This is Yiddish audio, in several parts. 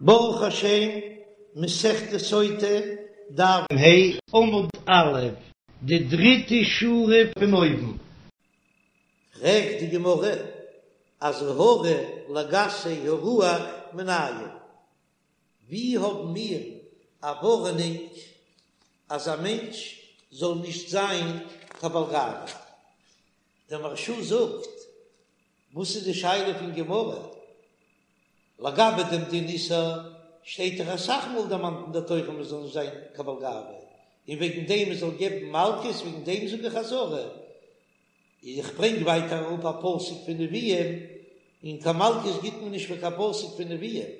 ברוך השם, מסכת סוטה, דף ה', עמוד א', די דריטע שורה פון אויבן. פרעגט די גמרא, אזהרה לגסי הרוח מנין? ווי האבן מיר א ווארענונג אז א מענטש זאל נישט זיין קיין בעל גאווה? דער מהרש"א זאגט, וואס איז די שאלה פון גמרא? לגבי דעם דין איסור שטייט דאך אסאך מאל דערמאנט אין דער תורה מען זאל נישט זיין קיין בעל גאווה, און וועגן דעם מען זאל געבן מלקות, וועגן דעם זאג איך אזהרה. איך ברענג ווייטער אראפ א פסוק פון נביאים, און קיין מלקות גיט מען נישט פאר קיין פסוק פון נביאים.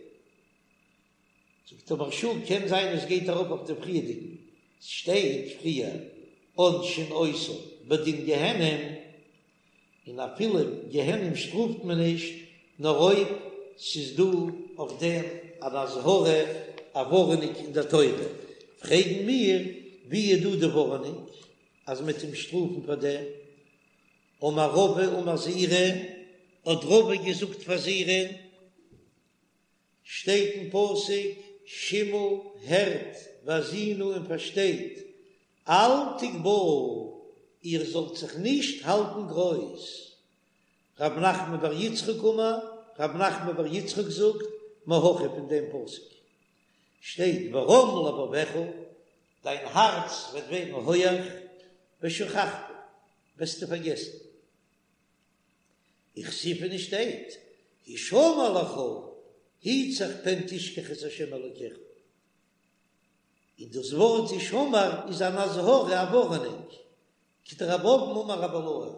זאגט דער מהרש"א, קען זיין עס גייט ארויף אויף די פריערדיגן, ס'שטייט פריער עונשין אותו בדין גיהנום, און אפילו גיהנום שטראפט מען נישט, נאר אויב ס'איז דא אויף דעם אן אזהרה, א ווארענונג אין דער תורה. פרעגן מיר, ווי איז דא די ווארענונג אז מ'וועט אים שטראפן פאר דעם? אמר רבא אמר זעירי, האט רבא געזאגט פאר זעירי, שטייט אין פסוק, שמעו, הערט, והאזינו און פארשטייט, אל תגבהו, איר זאלט זיך נישט האלטן גרויס. רב נחמן בר יצחק אמר, רב נחמן בר יצחק זאגט, מהכא פון דעם פסוק שטייט ורם לבבך, דיין הארץ וועט ווערן הויעך, ושכחת, וועסטו פארגעסן. וכתיב און ס'שטייט, הישמר לך, היט זיך פן תשכח את ה' אלוקיך. און דאס ווארט הישמר איז אן אזהרה, א ווארענונג, כדרב אבין אמר רבי אילעאי,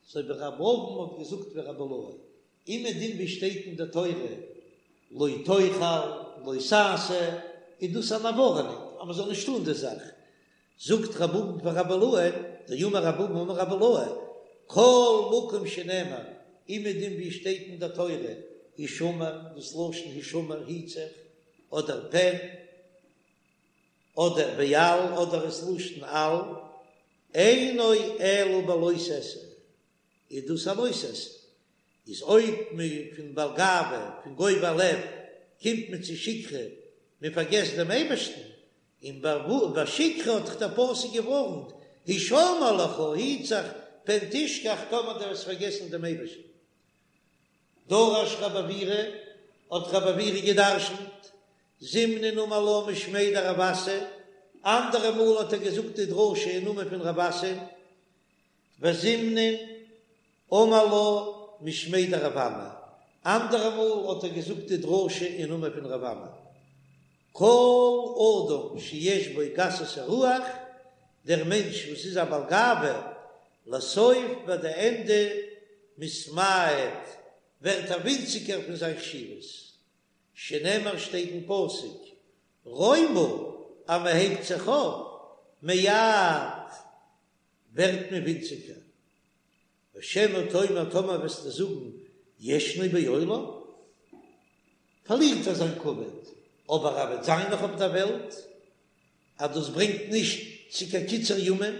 אזוי ווי רב אבין האט געזאגט ווי רבי אילעאי, אומעדום ווי שטייט אין די תורה לא תאכל, לא תעשה, איז דאס אן ווארענונג אז מען זאל נישט טון די זאך, זאגט רב אבין פאר רבי אילעאי, דאמר רב אבין אמר רבי אילעאי, כל מקום שנאמר, אומעדום ווי שטייט אין די תורה הישמר, דאס לשון הישמר היט זיך, אדער פן, אדער ואל, אדער עס לשון אל, אינו אלא בלא תעשה, איז דאס א לא תעשה, איז אויב מען פון בעל גאווה, פון גובה לב, קומט מען צו שכחה, מען פארגעסט דעם אייבערשטן, און ביי שכחה האט דאך דער פסוק געווארנט, הישמר לך, היט זיך, פן תשכח, טאמער דו וועסט פארגעסן דעם אייבערשטן. דרש רב עוירא, האט רב עוירא געדרשנט, זימנין אמר לה משמיה דרב אסי, אנדערע מאל האט ער געזאגט די דרשה אין נאמען פון רב אסי, וזימנין אמר לה משמיה דרב אמי, אנדערע מאל האט ער געזאגט די דרשה אין נאמען פון רב אמי. כל אדם שיש בו גסות הרוח, דער מענטש וואס איז א בעל גאווה, לסוף ביי די ענדע מתמעט, ווערט ער ווינציגער פון זיין חשיבות, שנאמר שטייט אין פסוק, רומא, אז מען הייבט זיך אויף, מעט, ווערט מען ווינציגער. ושמא תאמר טאמער וועסטו זאגן ישנו בעולם, פארלירט ער זיין כבוד, אבער ער וועט זיין נאך אויף דער וועלט, אז דאס ברענגט נישט צו קיין קיצור ימים,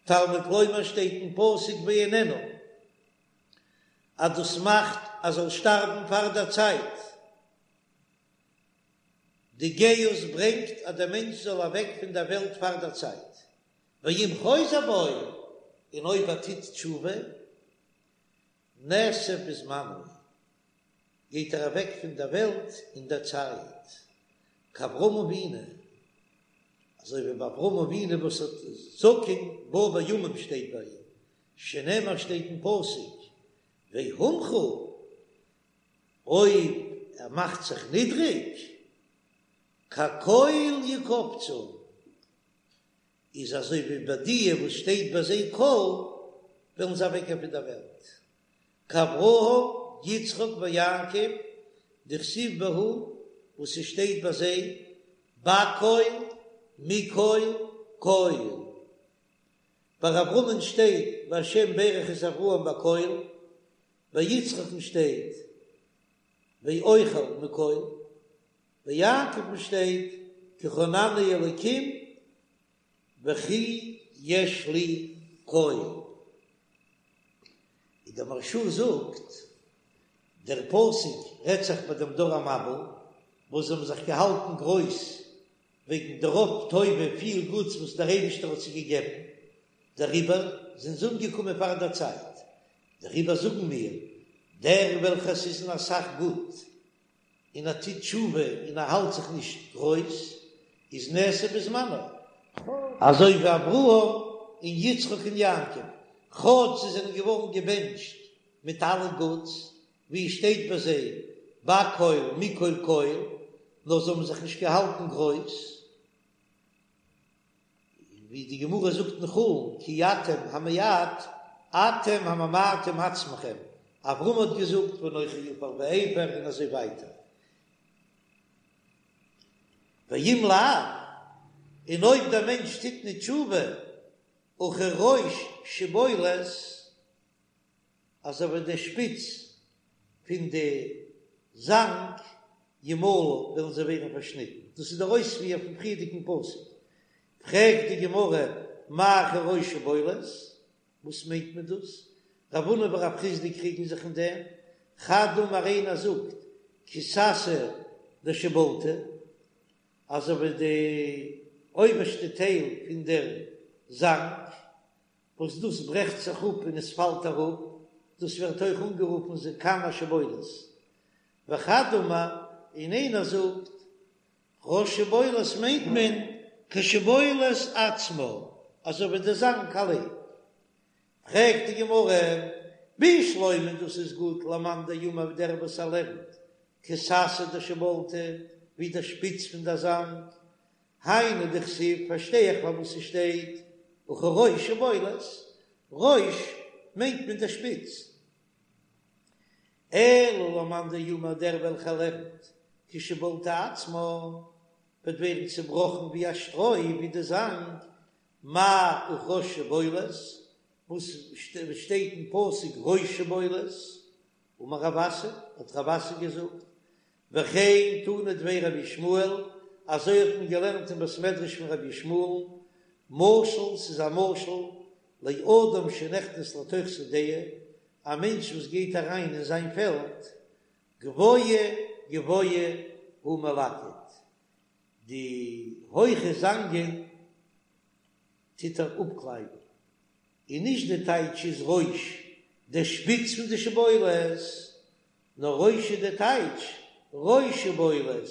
תלמוד לומר שטייט אין פסוק ואיננו, אז דאס מאכט אז זאל שטארבן פאר דער צייט. די גאות ברענגט אז דער מענטש זאל אוועק פון דער וועלט פאר דער צייט. ואם חוזר בו, און אויב ער טוט תשובה, נאסף בזמנו, גייט ער אוועק פון דער וועלט אין דער צייט, כאברהם אבינו, אזוי ווי ביי אברהם אבינו וואס האט זקן בא בימים שטייט ביי אים, שנאמר שטייט אין פסוק, והומכה, אויב ער מאכט זיך נידריג, כקול יקבצון, איז אזוי ווי ביי דיע וואס שטייט ביי זיי קול, וועלן זיי אוועקגיין פון דער וועלט. כאברהם, יצחק ויעקב, דכתיב בהו, וואס ס'שטייט ביי זיי, בקול, מקול, קול. ביי אברהמ'ן שטייט והשם ברך את אברהם בקול, ביי יצחק'ן שטייט ואוכל מקול, ביי יעקב'ן שטייט כי חנני אלקים וכי יש לי כל. און דער מהרש"א זאגט, דער פסוק רעדט זיך ביי דעם דור המבול. וואס זיי האבן זיך געהאלטן גרויס וועגן די רוב טובה, פיל גוטס וואס דער אייבישטער האט זיי געגעבן, דעריבער זענען זיי אומגעקומען פאר דער צייט. דעריבער זאגן מיר, דער וועלכער ס'איז אין אסאך גוט, און ער טוט תשובה און ער האלט זיך נישט גרויס, איז נעשה בזמנו. אזוי ווי אברהם און יצחק און יעקב, כאטש זיי זענען געווארן געבענטשט מיט אלע גוטס, ווי עס שטייט ביי זיי בכל מכל כל, נאר זיי האבן זיך נישט געהאלטן גרויס, ווי די גמרא זאגט אין חולין, כי אתם המעט אתם הממעטים עצמכם, אברהם האט געזאגט ואנכי עפר ואפר און אזוי ווייטער. ואם לאו, און אויב דער מענטש טוט נישט תשובה, וכראש שבולת, אזוי ווי די שפיץ פון די זאנג ימלו וועלן זיי ווערן פארשניטן, דאס איז דער אויספיר פון פריערדיגן פסוק, פרעגט די גמרא מאי כראש שבולת, וואס מיינט מען דאס? רב הונא ורב חסדא קריגן זיך אין דעם, חד אמר איינער זאגט כסתא דשיבולתא, אזוי ווי די אויבערשטע טייל פון דער זאנג, וואס דאס ברעכט זיך אפ און עס פאלט אראפ, דאס ווערט אויך אנגערופן זקן השבולת. וחד אמר, און איינער זאגט, ראש שבולת מיינט מען כשבולת עצמה, אזוי ווי די זאנג אליין. פרעגט די גמרא, בשלמא דאס איז גוט למאן דאמר דער וואס ער לערנט כסתא דשיבולתא, ווי דער שפיץ פון דער זאנג, היינו דכתיב פארשטיי איך פארוואס ס'שטייט וכראש שבולת, ראש מיינט מען דער שפיץ. אלא למאן דאמר דער וועלכער לערנט כשבולתא עצמה וועט ווערן צובראכן ווי א שטרוי ווי די זאנג, מאי וכראש שבולת, וואס שטייט אין פסוק ראש שבולת, אמר רב אסי, האט רב אסי געזאגט, וכן תנא דבי רבי ישמעאל, אזוי האט מען געלערנט אין בית מדרש פון רבי ישמעאל, משל, ס'איז א משל, לאדם שנכנס לתוך שדהו, א מענטש וואס גייט אריין אין זיין פעלד, גבוה גבוה הוא מלקט, די הויכע זאנגען טוט ער אפקלייבן, און נישט די טייטש איז ראש, די שפיץ פון די שבולת, נאר ראש איז די טייטש ראש שבולת,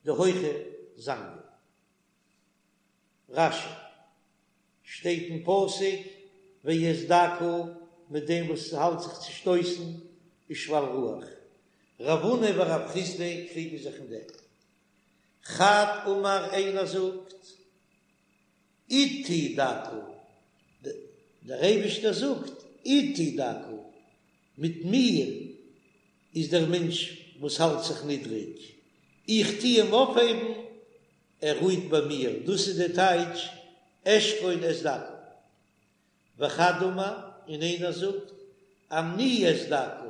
די הויכע זאנגען. רש"י, שטייט אין פסוק ואת דכא מיט דעם וואס האלט זיך צושטויסן ושפל רוח. רב הונא ורב חסדא קריגן זיך אין דעם. חד אמר איינער זאגט אתי דכא, דער אייבישטער זאגט אתי דכא, מיט מיר איז דער מענטש וואס האלט זיך נידריג, איך טו אים אויפהייבן, ער רוהט ביי מיר, דאס איז די טייטש אשכון את דכא. וחד אמר, און איינער זאגט אני את דכא,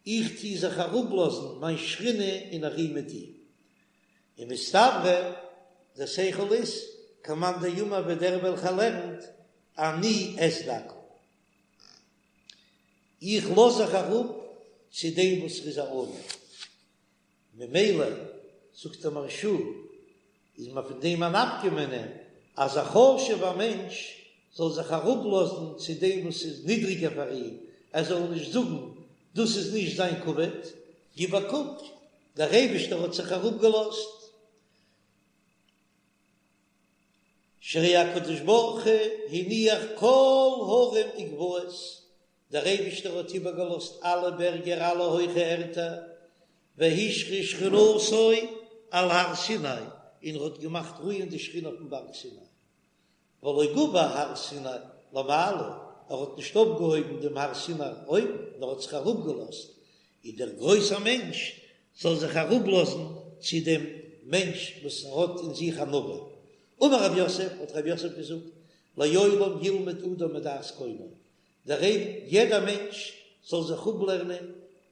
איך טו זיך אראפלאזן מיין שכינה און איך רו מיט אים. און מסתברא דער שכל איז כמאן דאמר ווי דער וועלכער לערנט אני את דכא, איך לאז זיך אראפ צו דעם וואס ער איז א עניו, ממילא זאגט דער מהרש"א איז מען פון דעם א נפקא מינה אז א חשוב'ער מענטש זאל זיך אראפלאזן צו דעם וואס איז נידריגער פאר אים, ער זאל נישט זאגן דאס איז נישט זיין כבוד, גיב א קוק, דער אייבישטער האט זיך אראפגעלאזט, שהרי הקדוש ברוך הוא הניח כל הרים וגבעות, דער אייבישטער האט איבערגעלאזט אלע בערגער אלע הויכע ערטער, והשרה שכינתו על הר סיני, און ער האט געמאכט רוען די שכינה אויפן בארג סיני. ולא גבה הר סיני למעלה, ער האט נישט אויפגעהויבן דעם הר סיני אויבן, נאר האט זיך אראפגעלאזט, און דער גרויסער מענטש זאל זיך אראפלאזן צו דעם מענטש וואס האט אין זיך ענווה. אמר רב יוסף, האט רב יוסף געזאגט, לעולם ילמד אדם מדעת קונו, דער יעדער מענטש זאל זיך אפלערנען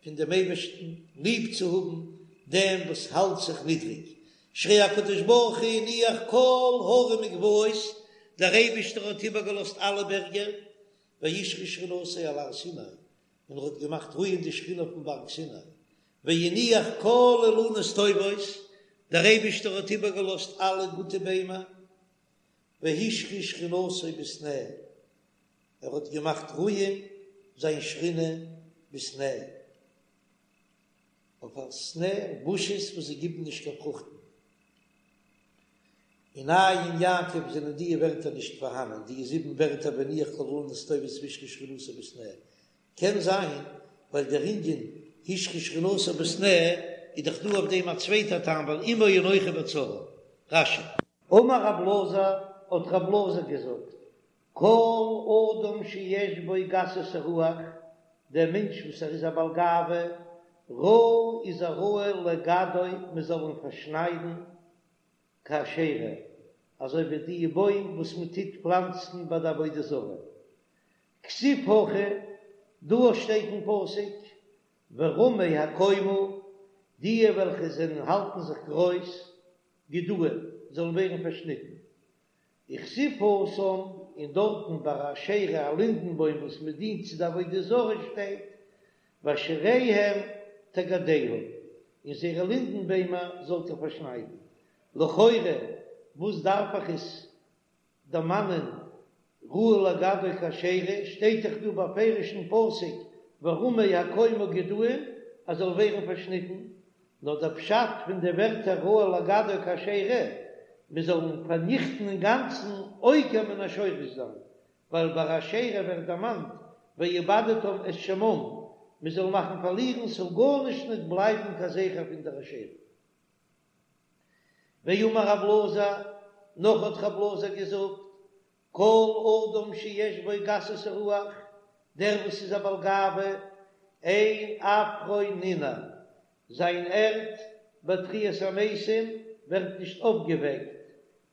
פון דעם אייבערשטן ליב צו האבן דעם וואס האלט זיך נידריג, שהרי הקדוש ברוך הוא הניח כל הרים וגבעות, דער אייבערשטער האט איבערגעלאזט אלע בערגער, והשרה שכינתו על הר סיני, און ער האט געמאכט רוען די שכינה אויפן בארג סיני, והניח כל אילנות טובות, דער אייבישטער האט איבערגעלאזט אלע גוטע ביימער, והשרה שכינתו בסנה, ער האט געמאכט רוען זיין שכינה בסנה, אויף א סנה, בושעס וואס זיי גיבן נישט קיין פרוכטן. אין עיין יעקב זענען דיע ווערטער נישט פארהאנען, דיע זיבן ווערטער והניח כל אילנות טובות והשרה שכינתו בסנה, קען זיין ווייל דער ענין השרה שכינתו בסנה איז דאך דא אויף דעם א צווייטע טעם ווייל עמו אנכי בצרה. רש"י. אמר רב אלעזר, האט רב אלעזר געזאגט, כל אדם שיש בו גסות הרוח, דער מענטש וואס ער איז א בעל גאווה, ראוי איז ער ראוי לגדעו מען זאל אים פארשניידן כאשרה, אזוי ווי די בוים וואס מען טוט פלאנצן ביי די עבודה זרה. כתיב הכא, דא שטייט אין פסוק, ורמי הקומה, די וועלכע זענען האלטן זיך גרויס, גדועים, זאלן ווערן פארשניטן. וכתיב התם, און דארטן ביי א אשרה א לינדן בוים וואס מען דינט צו די עבודה זרה שטייט, ואשריהם תגדעו, און זייערע לינדן ביימער זאלט איר פארשניידן. לכאורה וואס דארף איך עס דערמאנען ראוי לגדעו כאשרה, שטייט דאך דא בפירוש אין פסוק ורמי הקומה גדועים אז זאל ווערן פארשניטן, נאר דער פשט פון די ווערטער ראוי לגדעו כאשרה, מען זאל אים פארניכטן אינגאנצן עוקר מן השורש זיין, ווייל ביי אשרה ווערט דערמאנט ואבדתם את שמם, מען זאל מאכן פארלירן ס'זאל גארנישט ניט בלייבן קיין זכר פון דער אשרה. ואמר רב אלעזר, נאך האט רב אלעזר געזאגט, כל אדם שיש בו גסות הרוח, דער וואס איז א בעל גאווה, אין עפרו ננער, זיין ערד ביי תחיית המתים ווערט נישט אויפגעוועקט,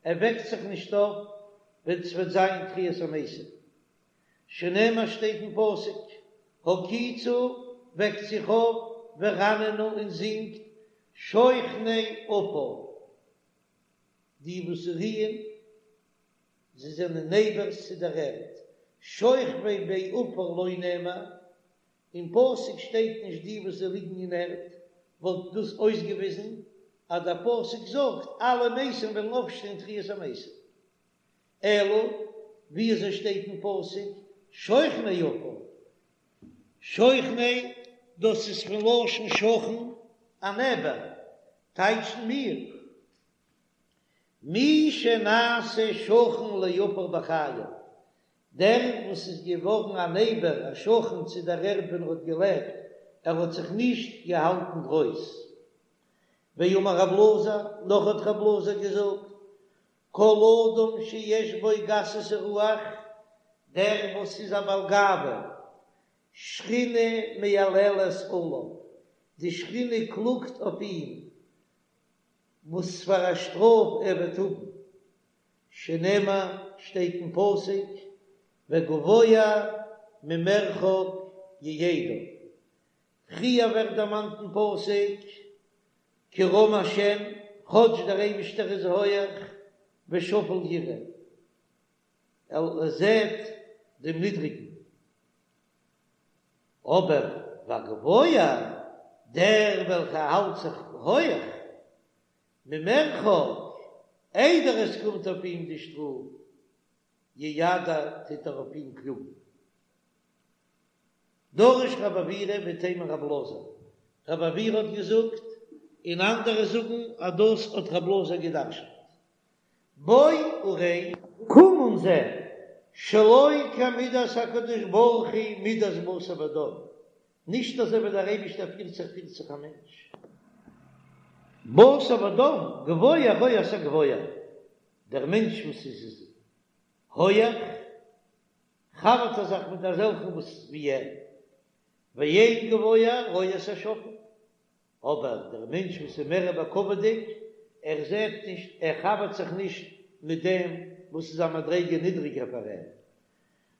ער וועקט זיך נישט אויף ווען ס'וועט זיין תחיית המתים. שנאמר שטייט אין פסוק, הקיצו, וועקט זיך אויף, ורננו און זינגט, שוכני עפר, די וואס רוען, זיי זענען נעבערס צו דער ערד, שוכבי בעפר לא נאמר, אין פסוק שטייט נישט די וואס זיי ליגן אין ערד, וואלט דאס אויסגעוויזן אז דער פסוק זאגט אלע מתים וועלן אויפשטיין תחיית המתים. אלא ווי אזוי שטייט אין פסוק שוכני עפר? שוכני דאס איז פון לשון שכן א נעבער, טייטשן מיר מי שנעשה שכן לעפר בחייו, דער וואס איז געווארן א נעבער א שכן צו דער ערד ווען ער האט געלעבט, ער האט זיך נישט געהאלטן גרויס. ואמר רב אלעזר, נאך האט רב אלעזר געזאגט, כל אדם שיש בו גסות הרוח, דער וואס איז א בעל גאווה, שכינה מייללת עליו, די שכינה קלאגט אויף אים, וואס פאר א שטראף ער וועט האבן, שנאמר, שטייט אין פסוק, וגבוה ממרחק ייידע. פריער ווערט דערמאנט אין פסוק, כי רם השם, כאטש דער אייבישטער איז הויעך, ושפל יראה, ער זעט דעם נידריגן, אבער והגבוה, דער וועלכער האלט זיך הויעך, ממרחק, איידער עס קומט אויף אים די שטראף, יידע, טוט ער אויף אים קלאגן. דרש רב עוירא ואיתימא רב אלעזר, רב עוירא האט געזאגט, און אנדערע זאגן אז דאס האט רב אלעזר געדרשנט. בוא וראה. קום און זע, שלא כמידת הקדוש ברוך הוא מידת בשר ודם, נישט אזוי ווי דער אייבישטער פירט זיך פירט זיך א מענטש. בשר ודם, גבוה רואה את הגבוה, דער מענטש וואס איז הויעך, חבר'ט ער זיך מיט אזעלכן וואס ווי ער, ואין גבוה רואה את השפל, אבער דער מענטש וואס איז מער בכבוד'יג, ער זעט נישט, ער חבר'ט זיך נישט מיט דעם וואס איז א מדריגה נידריגער פאר אים,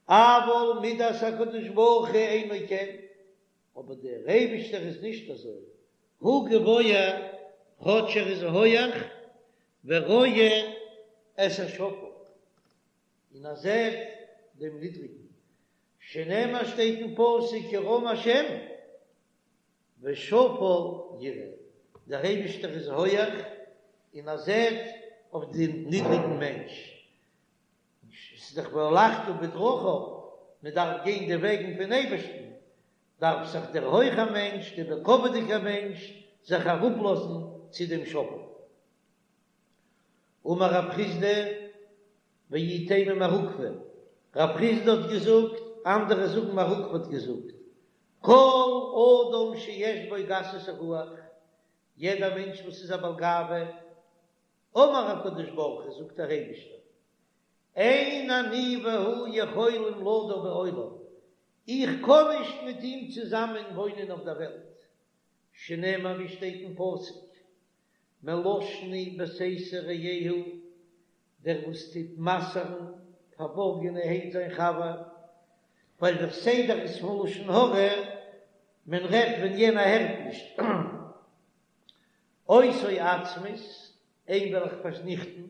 אבל מידת הקדוש ברוך הוא אינו כן, אבער דער אייבישטער איז נישט אזוי, הוא גבוה, כאטש ער איז הויעך, ורואה את השפל. און ער זעט דעם נידריגן, שנאמר שטייט אין פסוק כי רם השם. ושפל יראה, דער אייבישטער איז הויעך און ער זעט אויף דעם נידריגן מענטש, ס'איז דאך והלכת בדרכיו, מען דארף גיין די וועגן פון אייבערשטן, דארף זיך דער הויכער מענטש, דער בכבוד'יגער מענטש, זיך אראפלאזן צו דעם שפל. אמר רב חסדא, ואי תימא מר עוקבא, רב חסדא האט געזאגט, אנדערע זאגן מר עוקבא האט געזאגט, כל אדם שיש בו גסות הרוח, יעדער מענטש וואס איז א בעל גאווה, אמר הקדוש ברוך הוא, זאגט דער אייבישטער, אין אני והוא יכולים לדור בעולם, איך קען נישט מיט אים צוזאמען וואוינען אויף דער וועלט, שנאמר ווי שטייט אין פסוק, מלשני בסתר רעהו, דער וואס טוט מסר'ן פארבארגענערהייט זיין חבר, ווייל דער סדר איז פון לשון הרע, מען רעדט ווען יענער הערט נישט, אותו אצמית, אים וועל איך פארניכטן,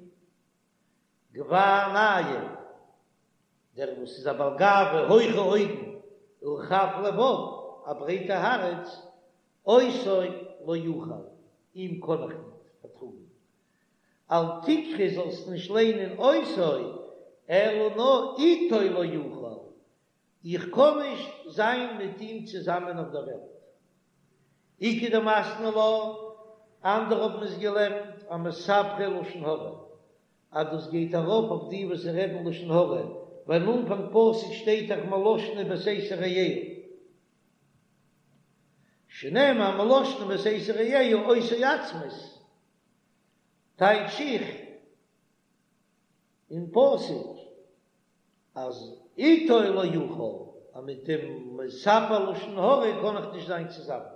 גבה עינים, דער וואס איז א בעל גאווה, הויכע אויגן, ורחב לבב, א ברייטע הארץ, אותו לא אוכל, אים קען איך ניט פארטראגן. אל תקרי זאלסט נישט ליינען אותו, אלא נאר איתו לא אוכל, איך קען נישט זיין מיט אים צוזאמען אויף דער וועלט. איכא דמתני לה, אנדערע האבן עס געלערנט אמספרי לשון הרע, אז דאס גייט ארויף אויף די וואס רעדן לשון הרע, ווייל אין אנפאנג פסוק שטייט דאך מלשני בסתר רעהו, שנאמר מלשני בסתר רעהו אותו אצמית, טייטש איך אין פסוק אז איתו לא אוכל, אז מיט דעם מספר לשון הרע קען איך נישט זיין צוזאמען.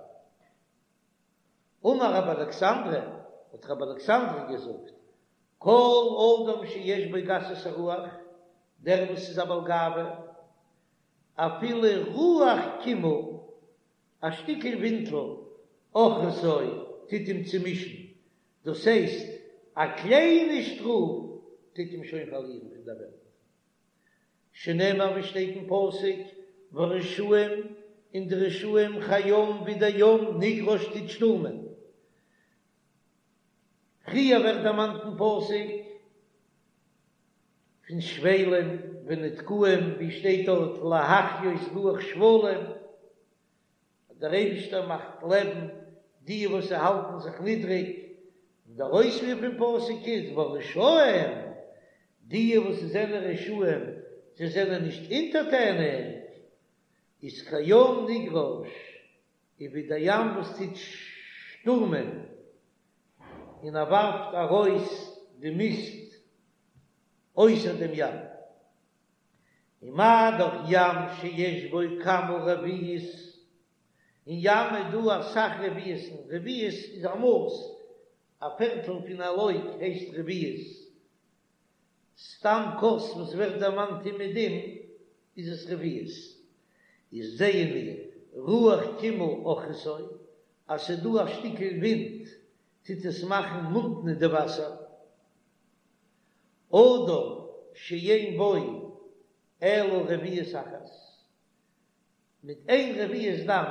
אמר רבי אלכסנדרי, האט רבי אלכסנדרי געזאגט, כל אדם שיש בו גסות הרוח, דער וואס איז א בעל גאווה, אפילו רוח קימעא, א שטיקל ווינטל, עוכרתו, טוט אים צומישן, דאס הייסט, א קליינע שטראף טוט אים שוין פארלירן פון דער וועלט. שנאמר ווי שטייט אין פסוק, והרשעים, און די רשעים כים ווי דער ים נגרש טוט שטורמען. פריער ווערט דערמאנט אין פסוק פון שפלים ונדכאים, ווי שטייט דארט להחיות רוח שפלים, אז דער אייבישטער מאכט לעבן די וואס זיי האלטן זיך נידריג, און דער אויספיר פון פסוק איז והרשעים, די וואס זענען רשעים, זיי זענען נישט אונטערטעניג, איז כים נגרש, איז ווי דער ים וואס טוט שטורמען און ער ווארפט ארויס די מיסט אויסער דעם ים. ומה דאך ים שיש בו כמה רביעיות, אין ים איז דא אסאך רביעית'ן, רביעית איז א מאס, א פערטל פון א לוג הייסט רביעית, סתם כוס וואס ווערט דערמאנט אומעדום איז עס רביעית, איז זעען מיר רוח קימעא עוכרתו, אז ס'איז דא א שטיקל ווינט טוט עס מאכן מוטנע די וואסער. אדם שאין בו אלא רביעית אחת, מיט איין רביעית דם,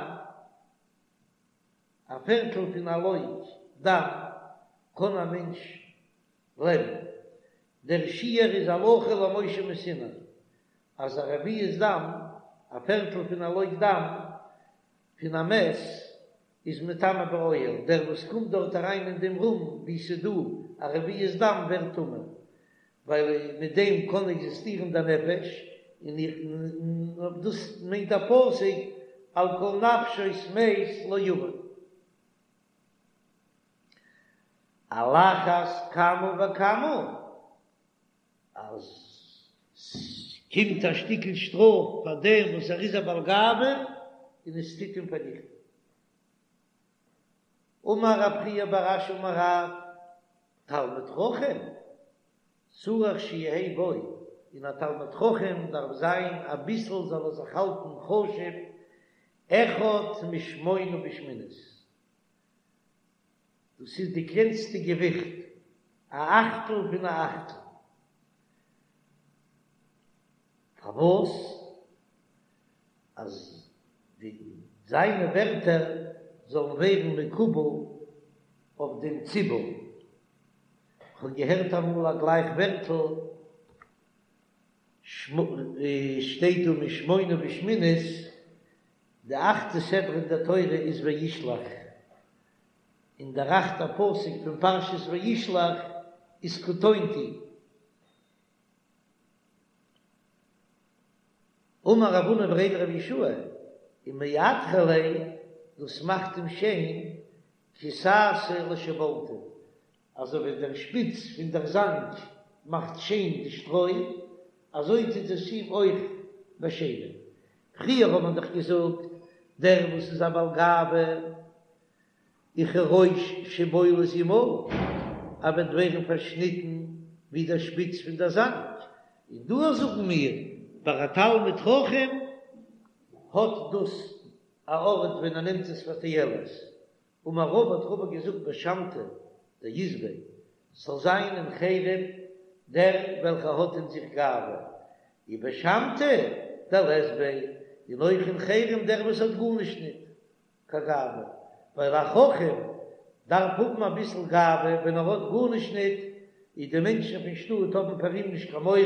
א פערטל פון א לוג דם, קען א מענטש לעבן. דער שיעור איז הלכה למשה מסיני, אז א רביעית דם, א פערטל פון א לוג דם, פון א מת, איז מטמא באוהל, דער וואס קומט דארט אריין אין דעם רום וואו ס'איז דא א רביעית דם ווערט טמא, ווייל מיט דעם קען עקזיסטירן דער נפש, און איך און דאס מיינט דער פסוק על כל נפשות מת לא יבוא. על אחת כמה וכמה אז ס'קומט א שטיקל שטראף פאר דעם וואס ער איז א בעל גאווה און עס טוט אים פארניכטן. אמר רב חייא בר אשי אמר רב, תלמיד חכם צריך שיהא בו, אין א תלמיד חכם דארף זיין אביסל זאל ער זיך האלטן חשוב, אחד משמונה בשמינית, דאס איז די קלענסטע געוויכט, א אכטל פון א אכטל. פארוואס? אז די זיינע ווערטער. זאלן ווערן מקובל אויף דעם ציבור. כ'האב געהערט אמאל א גלייך ווערטל, שטייט דא משמונה בשמינית, די אכטע סדרה אין דער תורה איז וישלח, און דער אכטער פסוק פון פרשת וישלח איז קטונתי. אמר רב הונא בריה דרב יהושע, ומעטרא ליה, דאס מאכט אים שיין, כי סאסא לשיבולתא, אזוי ווי דער שפיץ פון דער זאנג מאכט שיין די שטרוי, אזוי טוט עס אים אויך באשיינען. פריער האט מען דאך געזאגט, דער וואס איז א בעל גאווה, וכראש שבולת ימל, ער וועט ווערן פארשניטן ווי דער שפיץ פון דער זאנג, און דא זאגן מיר, ביי א תלמיד חכם האט דאס א ארט ווען ער נעמט עס פאר תועלת, אמר רבא האט רבא געזאגט בשמתא דאית ביה, ס'זאל זיין אין חרם דער וועלכער האט אין זיך גאווה, ובשמתא דלית ביה, און אויך אין חרם דער וואס האט גארנישט ניט קיין גאווה, ווייל א חכם דארף האבן אביסל גאווה, ווען ער האט גארנישט ניט, איז די מענטשן פון שטאט האבן פאר אים נישט קיין מורא,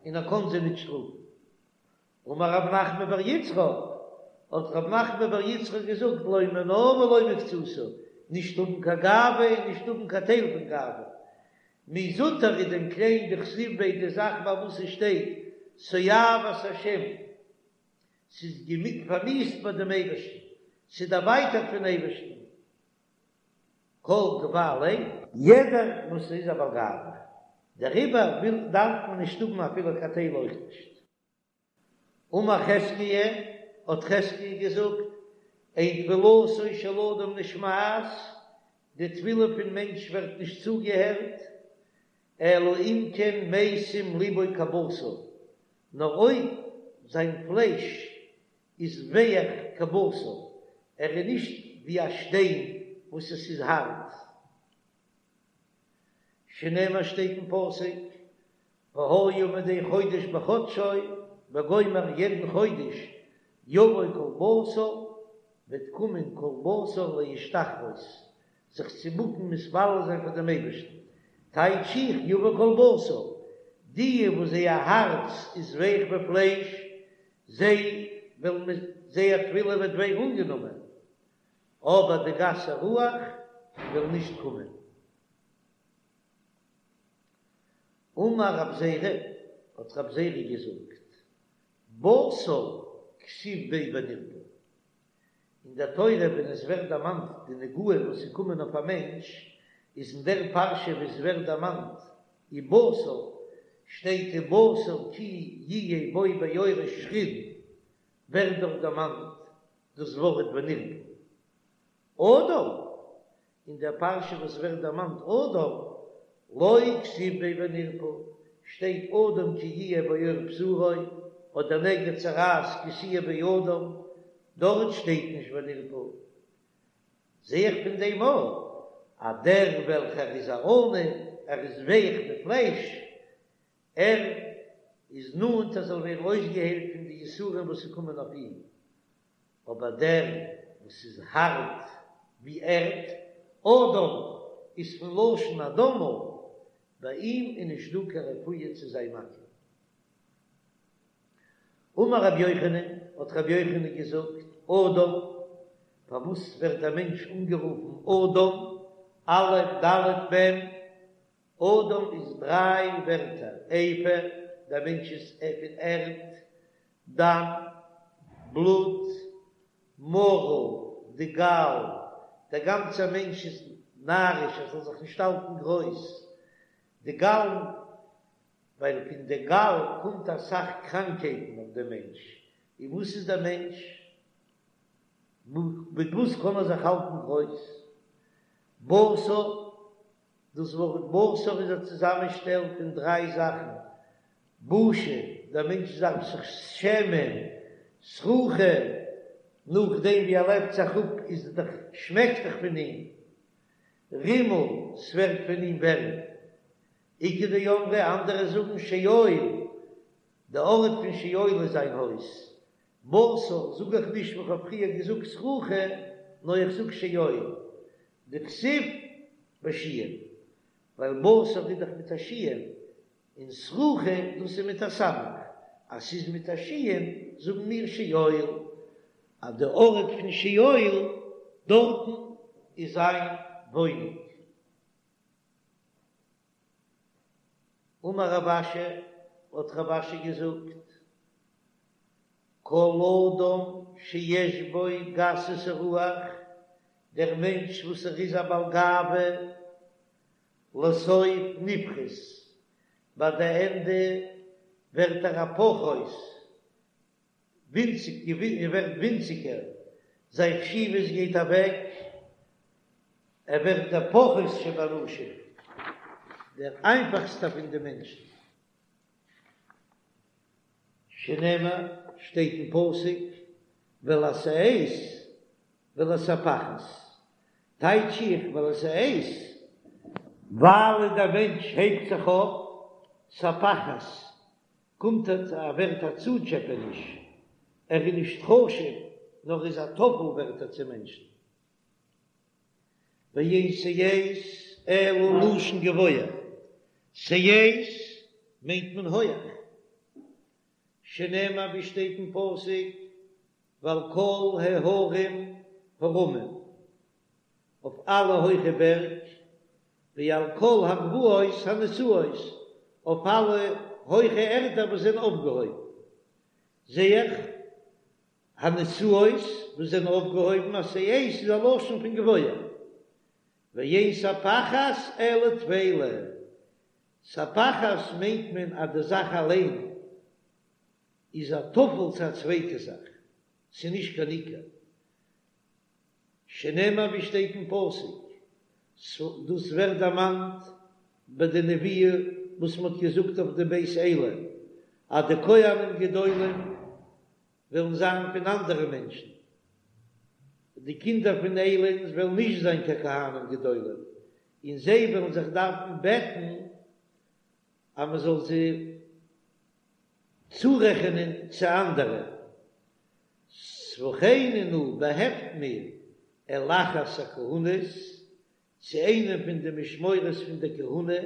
און ער קען זיי ניט שטראפן. אמר רב נחמן בר יצחק, האט רב נחמן בר יצחק געזאגט, לא מינה ולא מקצתה, נישט האבן קיין גאווה און נישט האבן קיין טייל פון גאווה. מי זוטר איז דען קליין דכתיב ביה די זאך ביי וואס עס שטייט תועבת השם, ס'איז פארמיאוסט ביי דעם אייבערשטן, ס'איז דערווייטערט פון אייבערשטן, כל גבה לב, יעדער וואס איז א בעל גאווה, דעריבער וויל דארף מען נישט האבן אפילו קיין טייל אויך נישט. אמר חזקיה, האט חזקיה געזאגט, אין תפילתו של אדם נשמעת, די תפילה פון מענטש ווערט נישט צוגעהערט, אלא אם כן משים לבו כבשר, נאר אויב זיין פלייש איז ווייך כבשר, ער איז נישט ווי א שטיין וואס עס איז הארט. שנאמר שטייט אין פסוק, והיה מדי חודש בחדשו, וגומר יעדן חודש יבוא כל בשר, וועט קומען כל בשר להשתחוות, זיך צו בוקן מתפלל זיין פאר דעם אייבערשטן, טייטש איך יבוא כל בשר, די וואס זייער הארץ איז ווייך ווי פלייש, זיי וועלן זייער תפילה וועט ווערן אנגענומען, אבער די גסי רוח וועלן נישט קומען. אמר רב זירא, האט רב זירא געזאגט, בשר כתיב ביה ונרפא, אין דער תורה ווען עס ווערט דערמאנט די נגעים וואס איז קומען אויף א מענטש, איז אין דער פרשה וואו עס ווערט דערמאנט ובשר, שטייט ובשר כי יהיה בו בעורו שחין, ווערט דארט דערמאנט דאס ווארט ונרפא. אדם, אין דער פרשה וואס ווערט דערמאנט אדם, לא כתיב ביה ונרפא, שטייט אדם כי יהיה בעור בשרו, אדער נגע צרעת כי תהיה באדם, דארט שטייט נישט ונרפא. זע איך פון דעם אויך אז דער וועלכער איז א עניו, ער איז ווייך ווי פלייש, ער איז נאנט ער זאל ווערן אויסגעהיילט פון די יסורים וואס ס'קומען אויף אים, אבער דער וואס איז הארט ווי ערד, אדם איז פון לשון אדמה, ביי אים איז נישט דא קיין רפואה צו זיין מכה. אמר רבי יוחנן, האט רבי יוחנן געזאגט, אדם, פארוואס ווערט דער מענטש אנגערופן אדם, א' ד' מ', אדם איז דריי ווערטער, עפר, דער מענטש איז פון ערד, דם, בלוט, מרה, די גאל, דער גאנצער מענטש איז נאריש ער זאל זיך נישט האלטן גרויס, די גאל, ווייל פון די גאל קומט אסאך קראנקייטן אויף דעם מענטש, און וואס איז דער מענטש? מיט וואס קען ער זיך האלטן גרויס? בשר, דאס ווארט בשר איז א צוזאמענשטעל פון דריי זאכן, בושה, דער מענטש דארף זיך שעמען, סרוחה, נאכדעם ווי ער לעבט זיך אפ איז דאך שמעקט דאך פון אים, רימה, ס'ווערט פון אים ווערים. איכא דאמרי, אנדערע זאגן שאול, די ארט פון שאול איז זיין הויז. בשר, זאג איך נישט ווי כ'האב פריער געזאגט סרוחה. נאר איך זאג שאול, דכתיב בשין, ווייל בשר איז דאך מיט א שין, און סרוחה דאס איז מיט א סמך, אז ס'איז מיט א שין זאגן מיר שאול, אז די ארט פון שאול דארטן איז זיין וואוינונג. אמר רב אשי, האט רב אשי געזאגט, כל אדם שיש בו גסות הרוח, דער מענטש וואס ער איז א בעל גאווה, לסוף נפחת, ביי די ענדע ווערט ער א פחות, ווינציג, ער ווערט ווינציגער, זיין חשיבות גייט אוועק, ער ווערט דער פחות שבאנשים, דער איינפאכסטער פון די מענטשן. שנאמר, שטייט אין פסוק, ולשאת ולספחת, טייטש איך ולשאת, ווייל דער מענטש הייבט זיך אויף, ספחת, קומט ער ווערט א צוטשעפעניש, ער איז נישט חשוב, נאר איז א טפל ווערט ער צו מענטשן. ואין שאת אלא לשון גבוה, שאת מיינט מען הויעך, שנאמר ווי שטייט אין פסוק ועל כל ההרים הרמים, אויף אלע הויכע בערג, ועל כל הגבעות הנשאות, אויף אלע הויכע ערטער וואס זענען אויפגעהויבן, זע איך הנשאות וואס זענען אויפגעהויבן אז שאת איז א לשון פון גבוה, ואין ספחת אלא טפלה, ספחת מיינט מען אז די זאך אליין איז א טפל צו א צווייטע זאך, ס'איז נישט קיין עיקר, שנאמר ווי שטייט אין פסוק, דאס ווערט דערמאנט ביי די נבואה וואס מ'האט געזאגט אויף די בית עלי, אז די כהנים גדולים וועלן זיין פון אנדערע מענטשן, די קינדער פון עלי'ן וועלן נישט זיין קיין כהנים גדולים, און זיי וועלן זיך דארפן בעטן אז מען זאל זיי צורעכענען צו אנדערע. ספחני נא, באהעפט מיר אל אחת הכהונות, צו איינעם פון די משמורות פון דער כהונה,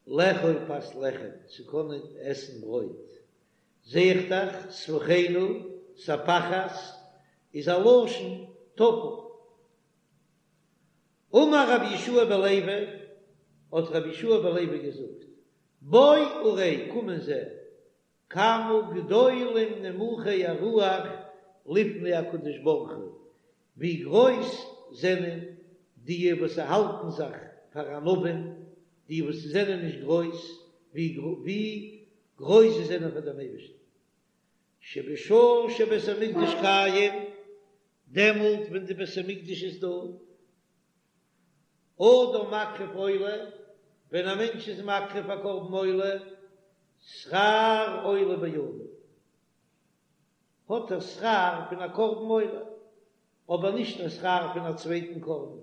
לאכול פת לחם, צו קענען עסן ברויט. זע איך דאך, ספחני נא, ספחת, איז א לשון טפל. אמר רבי יהושע בן לוי, האט רבי יהושע בן לוי געזאגט, בוא וראה, קום און זע, כמה גדולים נמוכי הרוח לפני הקדוש ברוך הוא, ווי גרויס זענען די וואס האלטן זיך פאר ענווים, די וואס זענען נישט גרויס, ווי גרויס זיי זענען פאר דעם אייבערשטן. שבשעה שבית המקדש קיים, דעמאלט ווען די בית המקדש איז דא, אדם מקריב עולה, ווען א מענטש איז מקריב א קרבן עולה, שכר עולה בידו, האט ער שכר פון א קרבן עולה, אבער נישט א שכר פון א צווייטן קרבן.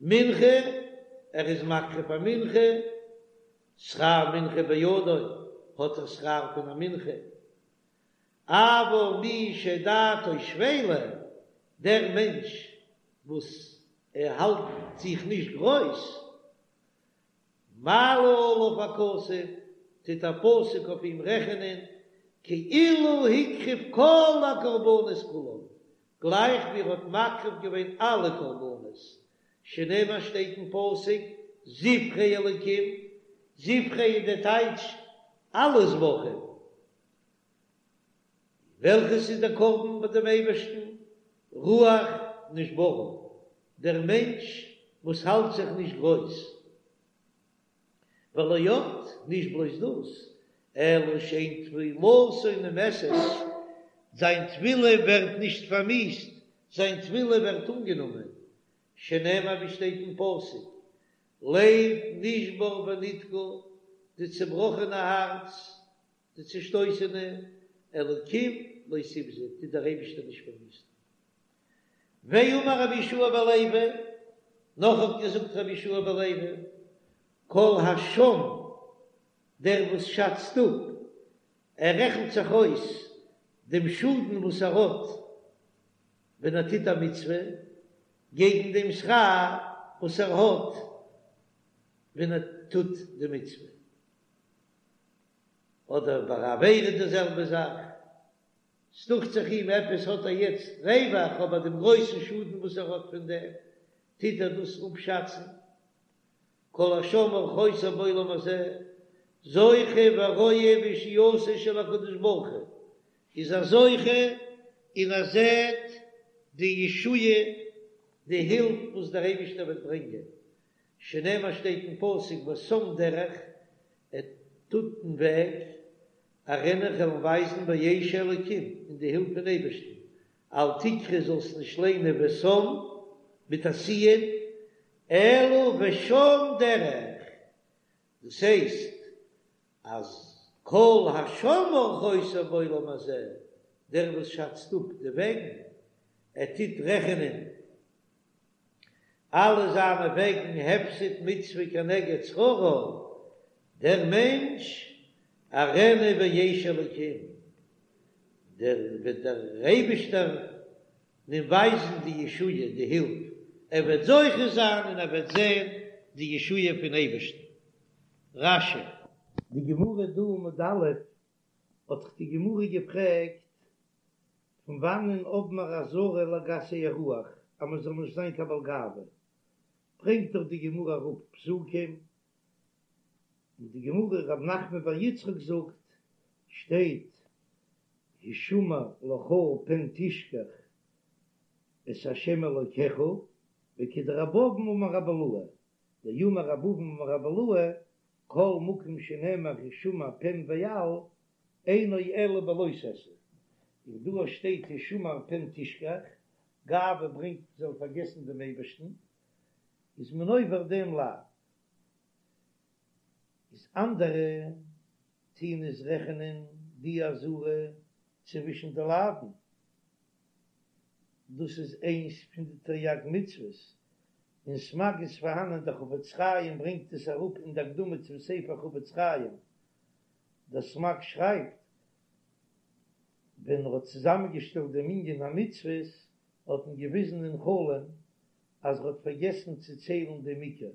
מנחה, ער איז מקריב א מנחה, שכר מנחה בידו, האט ער שכר פון א מנחה. אבל מי שדעתו שפלה, דער מענטש וואס ער האלט זיך נישט גרויס, מעלה עליו הכתוב, טוט א פסוק אויף אים רעכענען, כאילו הקריב כל הקרבנות כולם, גלייך ווי ער האט מקריב געווען אלע קרבנות, שנאמר שטייט אין פסוק, זבחי אלקים, זבחי איז די טייטש אלע זבחים, וועלכעס איז דער קרבן ביי דעם אייבערשטן? רוח נשברה, דער מענטש וואס האלט זיך נישט גרויס. ולא עוד, נישט בלויז דאס, אלא שאין תפילתו נמאסת, זיין תפילה ווערט נישט פארמיאוסט, זיין תפילה ווערט אנגענומען, שנאמר ווי שטייט אין פסוק, לב נשבר ונדכה, די צעבראכענע הארץ, די צעשטויסענע, אלקים לא תבזה, טוט דער אייבישטער נישט פארוויסטן. ואמר רבי יהושע בן לוי, נאך האט געזאגט רבי יהושע בן לוי, כל השם, דער וואס שאצט אפ, ער רעכנט זיך אויס דעם שאדן וואס ער האט ווען ער טוט א מצוה. געגן דעם שכר וואס ער האט ווען ער טוט די מצוה. אדער ביי א עבירה די זעלבע זאך, ס'דוכט זיך אים עפעס האט ער יעצט רווח, אבער דעם גרויסן שאדן וואס ער האט פון דעם, טוט ער דאס אפשאצן. כל השם אורחותיו בעולם הזה, זוכה ורואה בישועתו של הקדוש ברוך הוא, איז ער זוכה און ער זעט די ישועה, די הילף וואס דער אייבישטער וועט ברענגען, שנאמר שטייט אין פסוק ושם דרך, ער טוט אין וועג, אראנו כ'וועל אים ווייזן בישע אלקים, אין די הילף פון אייבערשטן, אל תקרי זאלסט נישט ליינען ושם מיט א סי"ן, אלא ושם דרך, דאס הייסט אז כל השם אורחותיו בעולם הזה, דער וואס שאצט אפ די וועגן, ער טוט רעכענען אלע זיינע וועגן הפסד מצוה כנגד שכרה, דער מענטש אראנו בישע אלקים, דער וועט דער אייבישטער אים ווייזן די ישועה, די הילף, ער וועט זוכה זיין און ער וועט זען די ישועה פון אייבערשטן. רש"י. די גמרא דא עמוד א' האט דאך די גמרא געפרעגט פון וואנען האבן מיר אזהרה לגסי הרוח אז מען זאל נישט זיין קיין בעל גאווה, ברענגט דאך די גמרא אראפ פסוקים, און די גמרא רב נחמן בר יצחק זאגט, שטייט השמר לך פן תשכח את ה' אלוקיך, וכדרב אבין אמר רבי אילעא, דאמר רב אבין אמר רבי אילעא, כל מקום שנאמר השמר פן ואל, אינו אלא בלא תעשה, און דא שטייט השמר פן תשכח, גאווה ברענגט מען זאל פארגעסן דעם אייבערשטן, איז מען עובר דעם לאו. איז אנדערע טוהן עס רעכענען די אזהרה צווישן די לאווין, דאס איז איינס פון די תריג מצוות, אין סמ"ג איז פארהאנען דער חפץ חיים ברענגט עס אראפ אין די הקדמה צום ספר חפץ חיים, דער סמ"ג שרייבט ווען ער האט צוזאמען געשטעלט דעם מנין המצוות האט אים געוויזן אין חלום אז ער האט פארגעסן צו ציילן דעם עיקר,